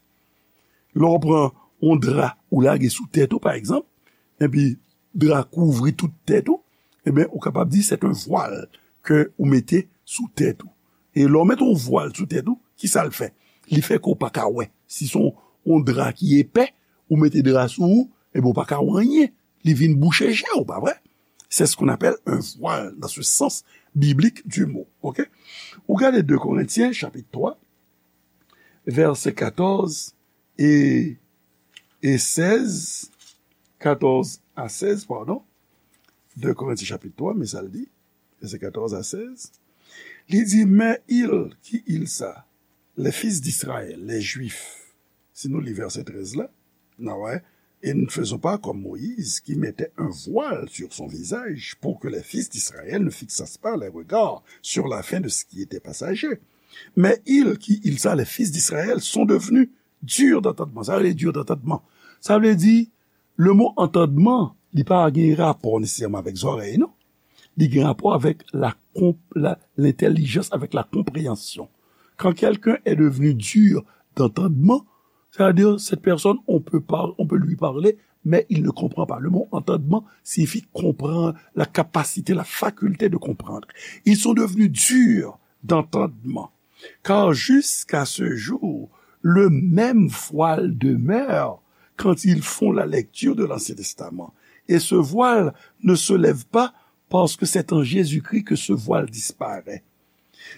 Lè w pran yon dra ou lage sou tèt ou, pa egzanp, epi dra kouvri tout tèt ou, ebyen, ou kapab di se yon vwal ke ou mete sou tèt ou. E lè w mete yon vwal sou tèt ou, ki sa l fè? Li fè ke w pa ka wè. Si se yon, yon dra ki epè, ou mete dra sou ou, ebyen, ou pa ka wè anyen. Li vin bouche je w, pa vre? C'est ce qu'on appelle un voile dans ce sens biblique du mot. Ok? Ou gade de Korentyen, chapit twa, vèsè katòz e, e sèz, katòz a sèz, padon. De Korentyen chapit twa, men sa l di, vèsè katòz a sèz. Li di, mais il, qui il ça? Les fils d'Israël, les Juifs. Si nou li vèsè trèz la, n a wè, et ne faisons pas comme Moïse, qui mettait un voile sur son visage pour que les fils d'Israël ne fixassent pas les regards sur la fin de ce qui était passager. Mais il, qui il ça, les fils d'Israël sont devenus durs d'entendement. Sa vle di dur d'entendement. Sa vle di, le mo antandman, li pa gen rapò nesesèman avèk zòrèy, non. Li gen rapò avèk la konp-, la, lentèlijans, avèk la konpreyansyon. Quand quelqu'un est devenu dur d'entendement, c'est-à-dire cette personne, on peut par-, on peut lui parler, mais il ne comprend pas. Le mot entendement signifie comprendre, la capacité, la faculté de comprendre. Ils sont devenus durs d'entendement. Car jusqu'à ce jour, le même voile demeure quand ils font la lecture de l'Ancien Testament. Et ce voile ne se lève pas parce que c'est en Jésus-Christ que ce voile disparaît.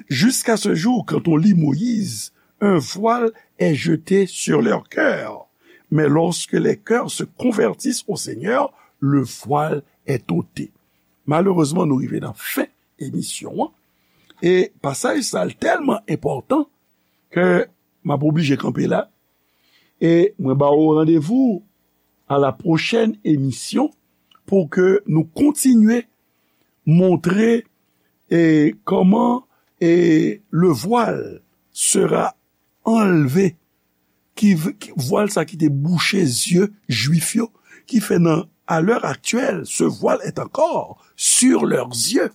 Jusqu'à ce jour, quand on lit Moïse, un voile est jeté sur leur cœur. Mais lorsque les cœurs se convertissent au Seigneur, le voile est ôté. Malerezman, nou rive nan fen emisyon an. E pasaj sa a tèlman enpòtan ke m ap oblije kanpe la. E mwen ba ou randevou à la prochaine émission pou ke nou kontinye montre e kòman e le voile sera enlevé, ki, ki vwal sa ki te bouche zye jwif yo, ki fè nan, à l'heure actuelle, ce voile est encore sur leurs yeux.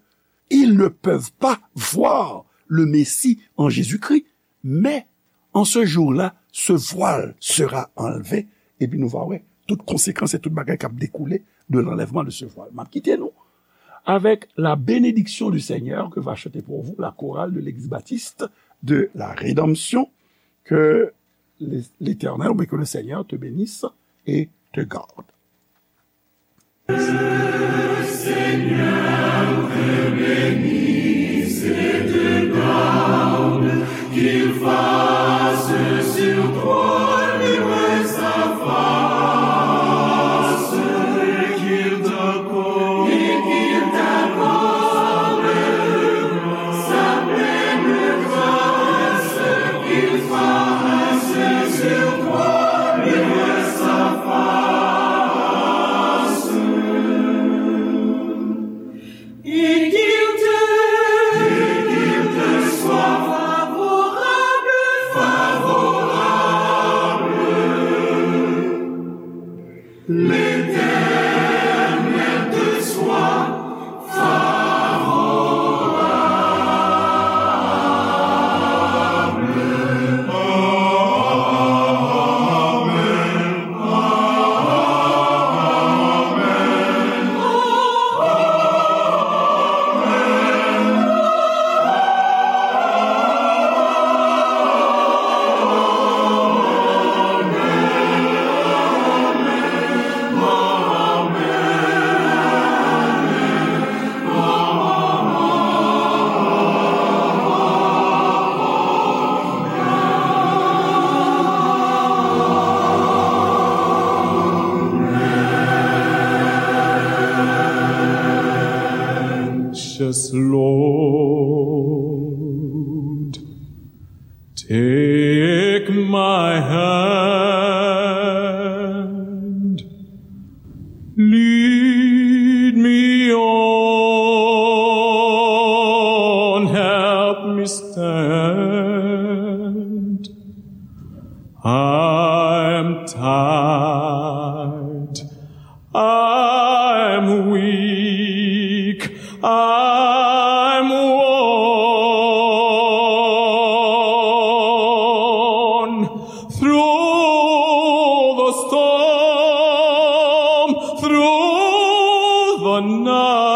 Ils ne peuvent pas voir le Messie en Jésus-Christ, mais en ce jour-là, ce voile sera enlevé. Epi nou va wè tout konsekans e tout bagay k ap dekoule de l'enlèvement de ce voile. M ap kite nou avec la bénédiction du Seigneur que va chanter pour vous la chorale de l'église baptiste de la Rédemption. Que l'Éternel, mais que le Seigneur te bénisse et te garde. Seigneur te bénisse et te garde, qu'il fasse sur toi luire sa face, et qu'il t'accorde, et qu'il t'accorde sa pleine grâce, qu'il fasse sur toi luire sa face. Et qu'il te, et qu'il te soit favorable, favorable. L'Éternel te soit favorable. Amen. Precious Lord, take my hand, lead me on, help me stand. I'm tired, I'm weak, I'm worn through the storm. Non.